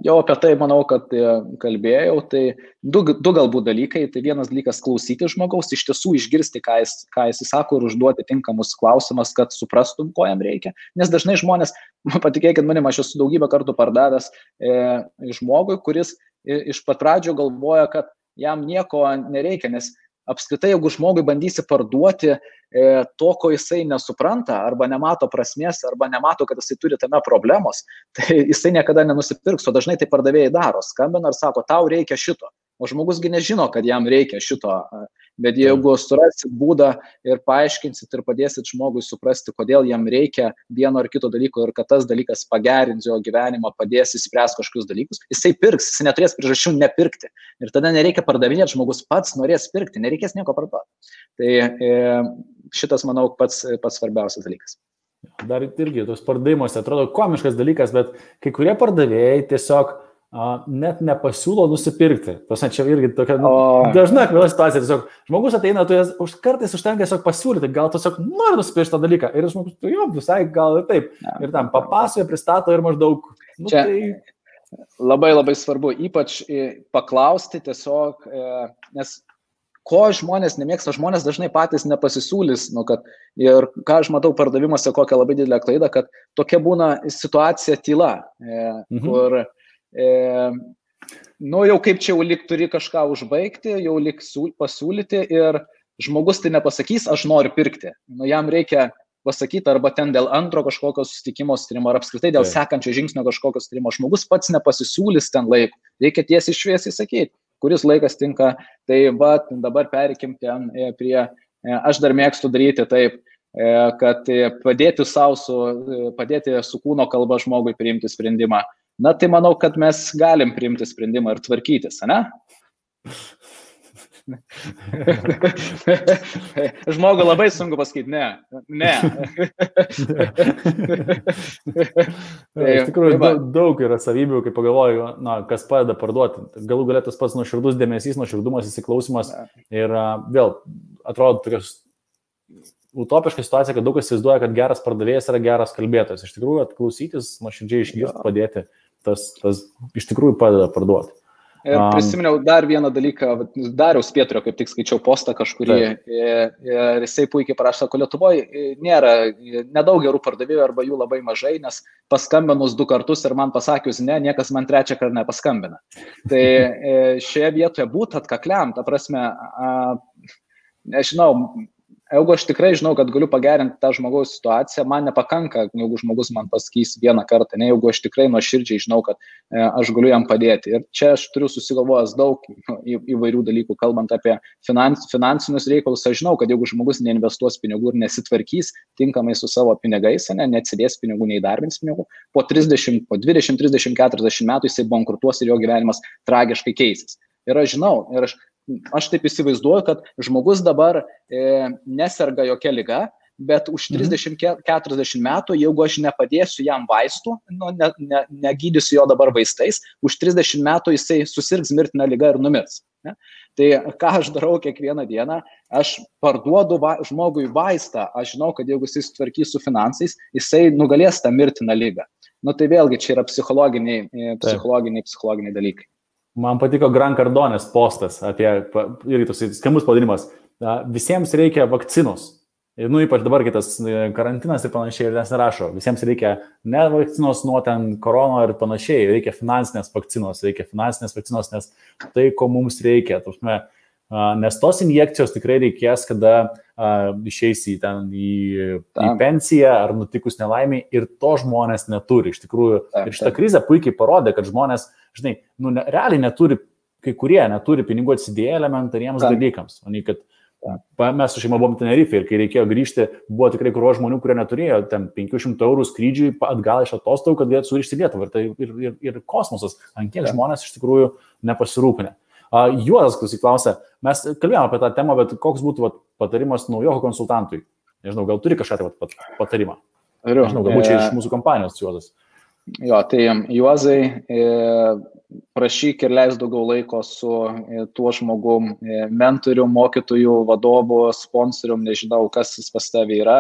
jau apie tai manau, kad kalbėjau, tai du galbūt dalykai. Tai vienas dalykas klausyti žmogaus, iš tiesų išgirsti, ką jis sako ir užduoti tinkamus klausimus, kad suprastum, ko jam reikia. Nes dažnai žmonės, patikėkit manim, aš esu daugybę kartų pardavęs žmogui, kuris iš pat pradžio galvoja, kad jam nieko nereikia, nes apskritai, jeigu žmogui bandysi parduoti to, ko jisai nesupranta, arba nemato prasmės, arba nemato, kad jisai turi tame problemos, tai jisai niekada nenusipirks, o dažnai tai pardavėjai daro, skambina ir sako, tau reikia šito, o žmogusgi nežino, kad jam reikia šito, bet jeigu surasit būdą ir paaiškinsit ir padėsit žmogui suprasti, kodėl jam reikia vieno ar kito dalyko ir kad tas dalykas pagerins jo gyvenimą, padės įspręsti kažkokius dalykus, jisai pirks, jisai neturės priežasčių nepirkti. Ir tada nereikia pardavinėti, žmogus pats norės pirkti, nereikės nieko parduoti. Tai šitas, manau, pats svarbiausias dalykas. Dar irgi tos pardavimuose atrodo komiškas dalykas, bet kai kurie pardavėjai tiesiog net nepasiūlo nusipirkti. Čia irgi tokia dažna akvila situacija. Tiesiog žmogus ateina, kartais užtenka tiesiog pasiūlyti, gal tiesiog nori nusipirkti tą dalyką. Ir žmogus, visai gal ir taip. Ir tam papasakoja, pristato ir maždaug. Čia labai labai svarbu, ypač paklausti tiesiog, nes ko žmonės nemėgsta, žmonės dažnai patys nepasisiūlys, ir ką aš matau pardavimuose, kokią labai didelę klaidą, kad tokia būna situacija tyla, kur jau kaip čia jau lyg turi kažką užbaigti, jau lyg pasiūlyti ir žmogus tai nepasakys, aš noriu pirkti. Jam reikia pasakyti arba ten dėl antro kažkokio susitikimo sutarimo, ar apskritai dėl sekančio žingsnio kažkokio sutarimo. Žmogus pats nepasisiūlys ten laiko. Reikia tiesiai šviesiai sakyti, kuris laikas tinka. Tai dabar perikim ten prie, aš dar mėgstu daryti taip, kad padėti su kūno kalba žmogui priimti sprendimą. Na, tai manau, kad mes galim priimti sprendimą ir tvarkytis, ne? Žmogui labai sunku pasakyti, ne. Iš tikrųjų, daug yra savybių, kai pagalvoju, kas padeda parduoti. Galų galėtas pats nuoširdus dėmesys, nuoširdumas, įsiklausimas. Ir vėl, atrodo, tokios utopiška situacija, kad daug kas įsivaizduoja, kad geras pardavėjas yra geras kalbėtojas. Iš tikrųjų, atklausytis, nuoširdžiai išgirsti, padėti, tas iš tikrųjų padeda parduoti. Ir prisiminiau dar vieną dalyką, Dariaus Pietrio, kaip tik skaičiau postą kažkurį, ir jisai puikiai parašė, sako, Lietuvoje nedaug gerų pardavėjų arba jų labai mažai, nes paskambinus 2 kartus ir man pasakius ne, niekas man 3 kartą nepaskambina. Tai šioje vietoje būti atkakliam, ta prasme, nežinau, jeigu aš tikrai žinau, kad galiu pagerinti tą žmogaus situaciją, man nepakanka, jeigu žmogus man pasakys vieną kartą, ne, jeigu aš tikrai nuoširdžiai žinau, kad aš galiu jam padėti. Ir čia aš turiu susigalvojęs daug įvairių dalykų, kalbant apie finansinius reikalus. Aš žinau, kad jeigu žmogus neinvestuos pinigų ir nesitvarkys tinkamai su savo pinigais, neatsidės pinigų, neįdarbins pinigų, po 20, 30, 40 metų jisai bankrutuos ir jo gyvenimas tragiškai keisis. Ir aš žinau, ir aš taip įsivaizduoju, kad žmogus dabar neserga jokia liga, bet už 30-40 metų, jeigu aš nepadėsiu jam vaistų, negydysiu jo dabar vaistais, už 30 metų jisai susirgs mirtiną ligą ir numirs. Ne? Tai ką aš darau kiekvieną dieną, aš parduodu žmogui vaistą, aš žinau, kad jeigu jis tvarkys su finansais, jisai nugalės tą mirtiną ligą. Nu tai vėlgi čia yra psichologiniai dalykai. Man patiko Gran Cardonės postas apie, irgi toks skambus pavadinimas, visiems reikia vakcinos. Ir ypač dabar kitas karantinas ir panašiai, ir nes nerašo, visiems reikia ne vakcinos nuo ten korono ir panašiai, reikia finansinės vakcinos, nes tai, ko mums reikia. Nes tos injekcijos tikrai reikės, kada išeisi į pensiją ar nutikus nelaimiai, ir to žmonės neturi. Iš tikrųjų, ir šitą krizę puikiai parodė, kad žmonės, žinai, realiai neturi, kai kurie neturi pinigų atsidėję elementariems dalykams. O nei kad mes su šeima buvom Tenerife ir kai reikėjo grįžti, buvo tikrai krūva žmonių, kurie neturėjo ten 500 eurų skrydžiui atgal iš atostogų, kad galėtų sugrįžti į Lietuvą. Ir kosmosas, ant kiek žmonės iš tikrųjų nepasirūpinę. Juozas klausia, mes kalbėjome apie tą temą, bet koks būtų patarimas naujoko konsultantui? Nežinau, gal turi kažką patarimą? Nežinau, galbūt čia iš mūsų kompanijos, Juozas. Jo, tai Juozai, prašyk ir leis daugiau laiko su tuo žmogum, mentoriu, mokytoju, vadovu, sponsorium, nežinau, kas jis pas tavį yra,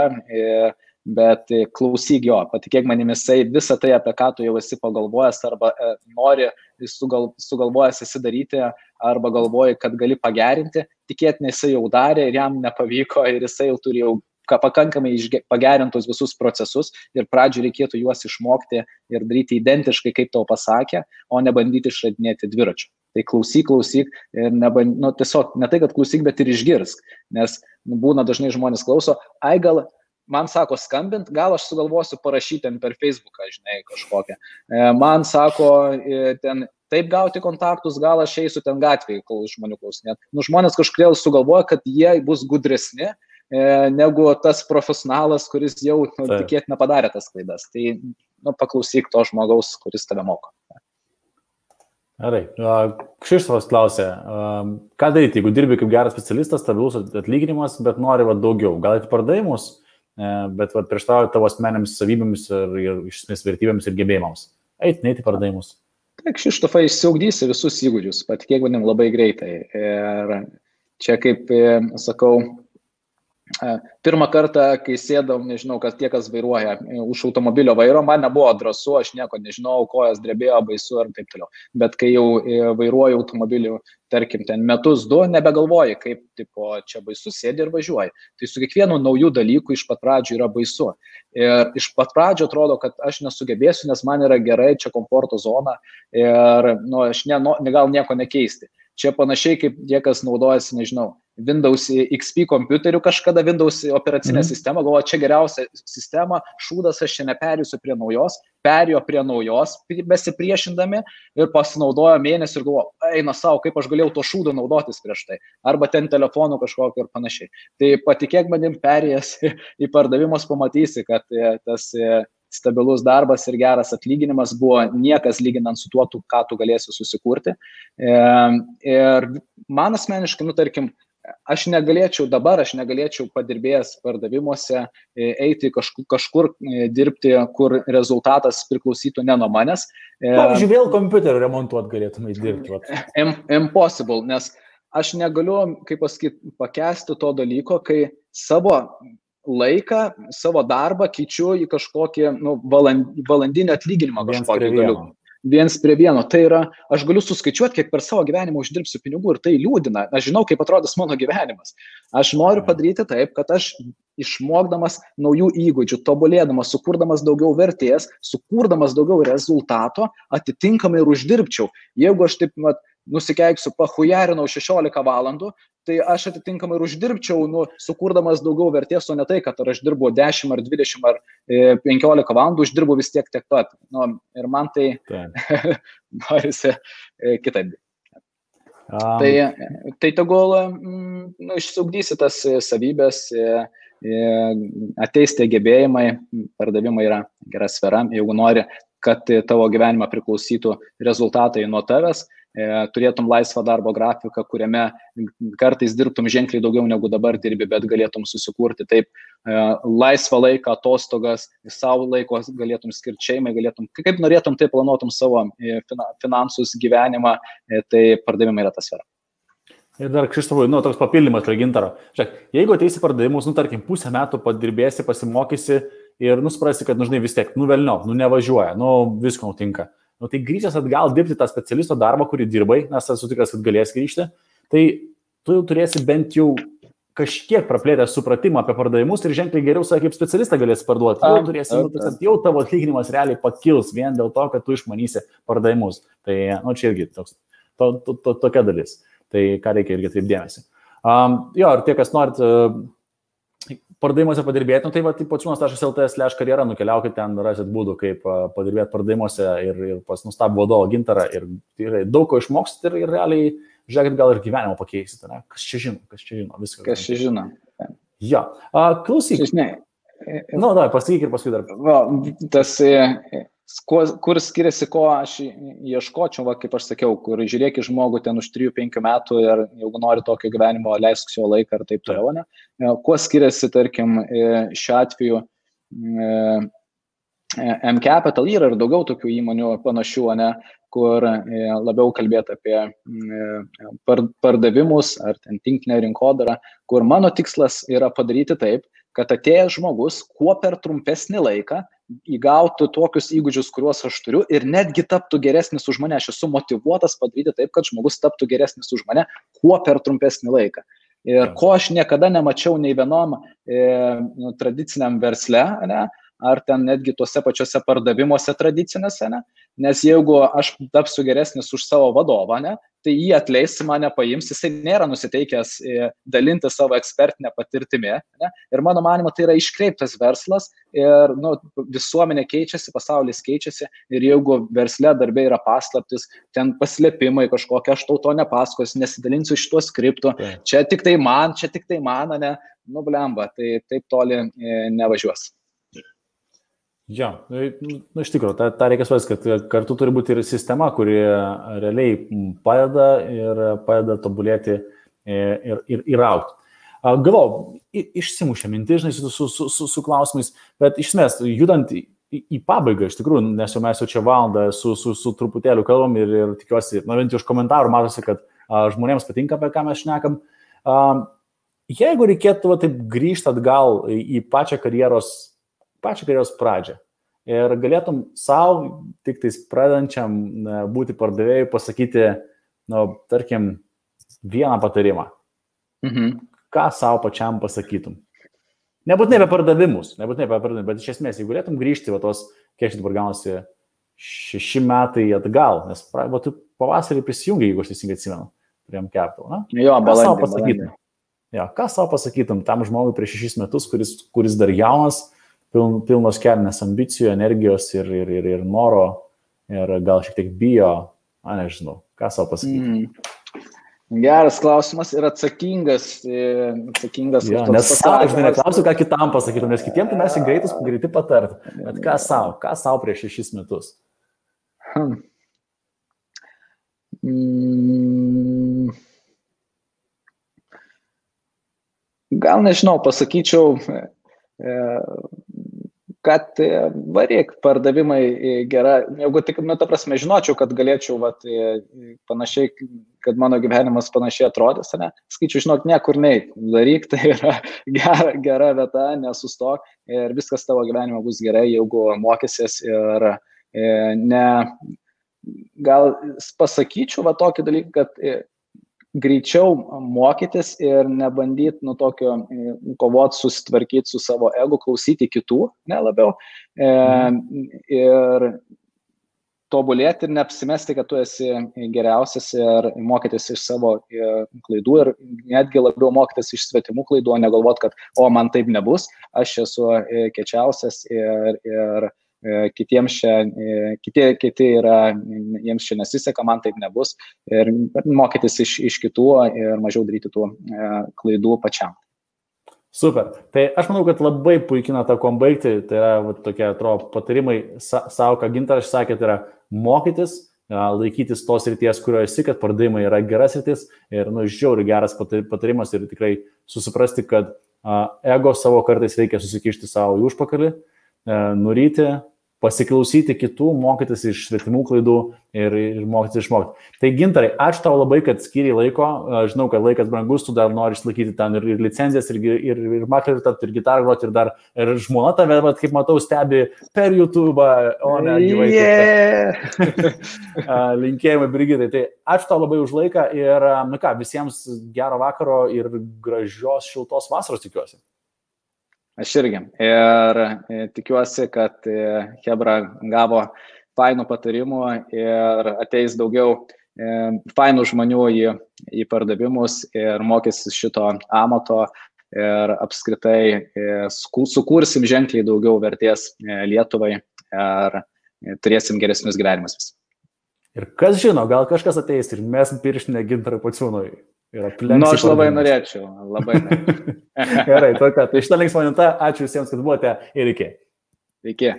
bet klausyk jo, patikėk manimi, jisai visą tai, apie ką tu jau esi pagalvojęs arba nori sugalvojęs esi daryti, arba galvoji, kad gali pagerinti, tikėtinai jisai jau darė ir jam nepavyko ir jisai jau turi jau pakankamai pagerintus visus procesus ir pradžioj reikėtų juos išmokti ir daryti identiškai, kaip tau pasakė, o ne bandyti išradinėti dviračių. Tai klausyk ir tiesiog ne tai, kad klausyk, bet ir išgirsk, nes būna dažnai žmonės klauso, gal man sako skambint, gal aš sugalvosiu parašyti ten per Facebooką, žinai, kažkokią. Man sako ten taip gauti kontaktus, gal aš eisiu ten gatvėje, kol žmonių klausinėt. Žmonės kažkodėl sugalvoja, kad jie bus gudresni, negu tas profesionalas, kuris jau tikėtina padarė tas klaidas. Tai paklausyk to žmogaus, kuris tave moko. Gerai. Kšištofas klausė, ką daryti, jeigu dirbi kaip geras specialistas, stabilus atlyginimas, bet nori daugiau. Gal į pardavimus, bet prieštarauja tavo asmenėms savybėms ir iš esmės vertybėms ir gebėjimams. Neiti pardavimus. Tai Kšištofai išsiugdysi visus įgūdžius, patikėk manim labai greitai. Ir čia kaip sakau, pirmą kartą, kai sėdau, nežinau, kas tie, kas vairuoja už automobilio vairo, man nebuvo drąsu, aš nieko nežinau, kojas drebėjo, baisu ir taip toliau. Bet kai jau vairuoju automobilių, tarkim, ten metus, du, nebegalvoji, kaip čia baisu, sėdi ir važiuoji. Tai su kiekvienu naujų dalykų iš pat pradžių yra baisu. Ir iš pat pradžio atrodo, kad aš nesugebėsiu, nes man yra gerai, čia komforto zona ir aš gal nieko nekeisti. Čia panašiai kaip tie, kas naudojasi, nežinau, Windows XP kompiuteriu kažkada, Windows operacinė sistema, galvoja, čia geriausia sistema, šūdas, aš čia neperėsiu prie naujos, perėjo prie naujos, besipriešindami ir pasinaudojo mėnesį ir galvoja, eina savo, kaip aš galėjau to šūdo naudotis prieš tai, arba ten telefonų kažkokio ir panašiai. Tai patikėk manim, perėjęs į pardavimus pamatysi, kad tas stabilus darbas ir geras atlyginimas buvo niekas lyginant su tuo, ką tu galėsi susikurti. Ir man asmeniškai, tarkim, aš negalėčiau padirbėjęs pardavimuose eiti kažkur dirbti, kur rezultatas priklausytų ne nuo manęs. Pavyzdžiui, vėl kompiuterį remontuot galėtumai dirbti. Impossible, nes aš negaliu, kaip pasakyti, pakęsti to dalyko, kai savo laiką, savo darbą keičiu į kažkokį valandinį atlyginimą kažkokį galiu. Viens prie vieno. Tai yra, aš galiu suskaičiuoti, kiek per savo gyvenimą uždirbsiu pinigų ir tai liūdina. Aš žinau, kaip atrodys mano gyvenimas. Aš noriu padaryti taip, kad aš išmokdamas naujų įgūdžių, tobulėdamas, sukurdamas daugiau vertės, sukurdamas daugiau rezultato, atitinkamai ir uždirbčiau. Jeigu aš taip nusikeiksiu, pahujarinau 16 valandų, tai aš atitinkamai ir uždirbčiau, sukurdamas daugiau vertės, o ne tai, kad ar aš dirbu 10 ar 20 ar 15 valandų, uždirbu vis tiek tiek pat. Ir man tai norisi kitaip. Tai tegul išsiugdysi tas savybės, ateis tie gebėjimai, pardavimai yra gera sfera, jeigu nori, kad tavo gyvenimą priklausytų rezultatai nuo tavęs, turėtum laisvą darbo grafiką, kuriame kartais dirbtum ženkliai daugiau negu dabar dirbi, bet galėtum susikurti taip laisvą laiką, atostogas, savo laiko galėtum skirti šeimai, kaip norėtum, taip planuotum savo finansus, gyvenimą, tai pardavimai yra ta sfera. Ir dar Kšištofui, toks papildymas prie Gintaro. Žiūrėk, jeigu ateisi pardavimus, tarkim, pusę metų padirbėsi, pasimokysi ir nuspręsi, kad, žinai, vis tiek, velniop, nevažiuoja, visko nutinka. Tai grįžęs atgal dirbti tą specialisto darbą, kurį dirbai, nes esu tikras, kad galės grįžti, tai tu jau turėsi bent jau kažkiek praplėtęs supratimą apie pardavimus ir ženkliai geriau save kaip specialistą galės parduoti. Jau turėsi, jau tavo atlyginimas realiai pakils vien dėl to, kad tu išmanysi pardavimus. Tai, čia irgi toks, tokia dalis. Tai ką reikia irgi taip dėmesį. Ir tie, kas norit pardavimuose padirbėti, tai pociūnas.lt/karjera, nukeliaukit ten, rasit būdų, kaip padirbėti pardavimuose ir pas nustabų vadovą Gintarą ir daug ko išmoksit ir realiai, žiūrėkit, gal ir gyvenimą pakeisit. Ne? Kas čia žino, viską. Kas čia žino. Jo. Klausyk. Pasakyk ir paskui dar. Kur skiriasi, ko aš ieškočiau, kaip aš sakiau, kur žiūrėk į žmogų ten už 3-5 metų ir jeigu nori tokio gyvenimo, leisk jo laiką ir taip toliau, ne? Kuo skiriasi, tarkim, šiuo atveju M-Capital yra ir daugiau tokių įmonių panašių, ne, kur labiau kalbėti apie pardavimus ar ten tinklinę rinkodarą, kur mano tikslas yra padaryti taip, kad atėjęs žmogus kuo per trumpesnį laiką įgautų tokius įgūdžius, kuriuos aš turiu ir netgi taptų geresnis už mane. Aš esu motyvuotas padaryti taip, kad žmogus taptų geresnis už mane kuo per trumpesnį laiką. Ir ko aš niekada nemačiau nei vienom tradiciniam versle, ne, ar ten netgi tuose pačiuose pardavimuose tradicinėse, ne? Nes jeigu aš tapsiu geresnis už savo vadovą, ne, tai jį atleis, mane paims, jisai nėra nusiteikęs dalinti savo ekspertinę patirtimį. Ne? Ir mano manimo, tai yra iškreiptas verslas ir visuomenė keičiasi, pasaulis keičiasi ir jeigu versle darbė yra paslaptis, ten paslėpimai kažkokie, aš tau to nepasakosiu, nesidalinsiu šituo skriptu, čia tik tai man, ne, blemba, tai taip toli nevažiuos. Jo, iš tikrųjų, tą reikia suprasti, kad kartu turi būti ir sistema, kuri realiai padeda tobulėti ir augti. Galvoju, išsimušė mintis, žinai, su klausimais, bet iš esmės, judant į pabaigą, iš tikrųjų, nes jau mes čia valandą su truputėliu kalbam ir tikiuosi, bent iš komentarų matosi, kad žmonėms patinka, apie ką mes šnekam. Jeigu reikėtų taip grįžti atgal į pačią karjeros pradžią ir galėtum savo, tik tais pradedančiam būti pardavėjui, pasakyti, tarkim, vieną patarimą. Ką savo pačiam pasakytum? Nebūtinai apie pardavimus, bet iš esmės, jeigu galėtum grįžti, kiek dabar gaunasi 6 metai atgal, nes tu pavasarį prisijungi, jeigu aš teisingai atsimenu, prie M-Capital, na? Jo, balandį. Ką savo pasakytum tam žmogui prieš 6 metus, kuris dar jaunas, pilnos kelnės ambicijų, energijos ir noro, ir gal šiek tiek bijo, nežinau, ką savo pasakyti. Geras klausimas ir atsakingas. Nes aš neklausiu, ką kitam pasakytum, nes kitiem tai mes greiti patart, bet ką savo prieš 6 metus? Gal nežinau, pasakyčiau, kad varyk, pardavimai gera, jeigu tik, ta prasme, žinočiau, kad galėčiau panašiai, kad mano gyvenimas panašiai atrodys, ne? Skaičiu, žinok, niekur neik, daryk, tai yra gera vieta, nesustok ir viskas tavo gyvenime bus gerai, jeigu mokysies ir gal pasakyčiau tokį dalyką, kad greičiau mokytis ir nebandyti tokio kovoti, susitvarkyti su savo ego, klausyti kitų, ne labiau, ir tobulėti ir neapsimesti, kad tu esi geriausias ir mokytis iš savo klaidų ir netgi labiau mokytis iš svetimų klaidų, o negalvoti, kad man taip nebus, aš esu kiečiausias ir kitiems kiti yra, jiems čia nesiseka, man taip nebus ir mokytis iš kitų ir mažiau daryti tų klaidų pačiam. Super. Tai aš manau, kad labai puikina tą kom baigti, tai yra tokie, atrodo, patarimai savo, ką Gintaras sakė, tai yra mokytis, laikytis tos srities, kurioje esi, kad pardavimai yra geras sritis ir, žiauriai geras patarimas ir tikrai susiprasti, kad ego savo kartais reikia susikišti savo į užpakalį, nuryti pasiklausyti kitų, mokytis iš svetimų klaidų ir mokytis išmokti. Tai Gintarai, ačiū tau labai, kad skiriai laiko. Žinau, kad laikas brangus, tu dar nori išlaikyti ten ir licenzijas, ir maklerių tapti, ir gitarą groti, ir žmona tave, kaip matau, stebi per YouTube, o ne gyvai. Linkėjimai, Brigitai. Tai ačiū tau labai už laiką ir, visiems gero vakaro ir gražios šiltos vasaros tikiuosi. Aš irgi. Ir tikiuosi, kad Hebra gavo fainų patarimų ir ateis daugiau fainų žmonių į pardavimus ir mokysis šito amato ir apskritai sukursim ženkliai daugiau vertės Lietuvai ir turėsim geresnius gyvenimus vis. Ir kas žino, gal kažkas ateis ir mes pirštinę Gintarui Pociūnui. Aš labai norėčiau, labai norėčiau. Gerai, tai šitą linksmą minutę, ačiū visiems, kad buvote ir iki. Iki.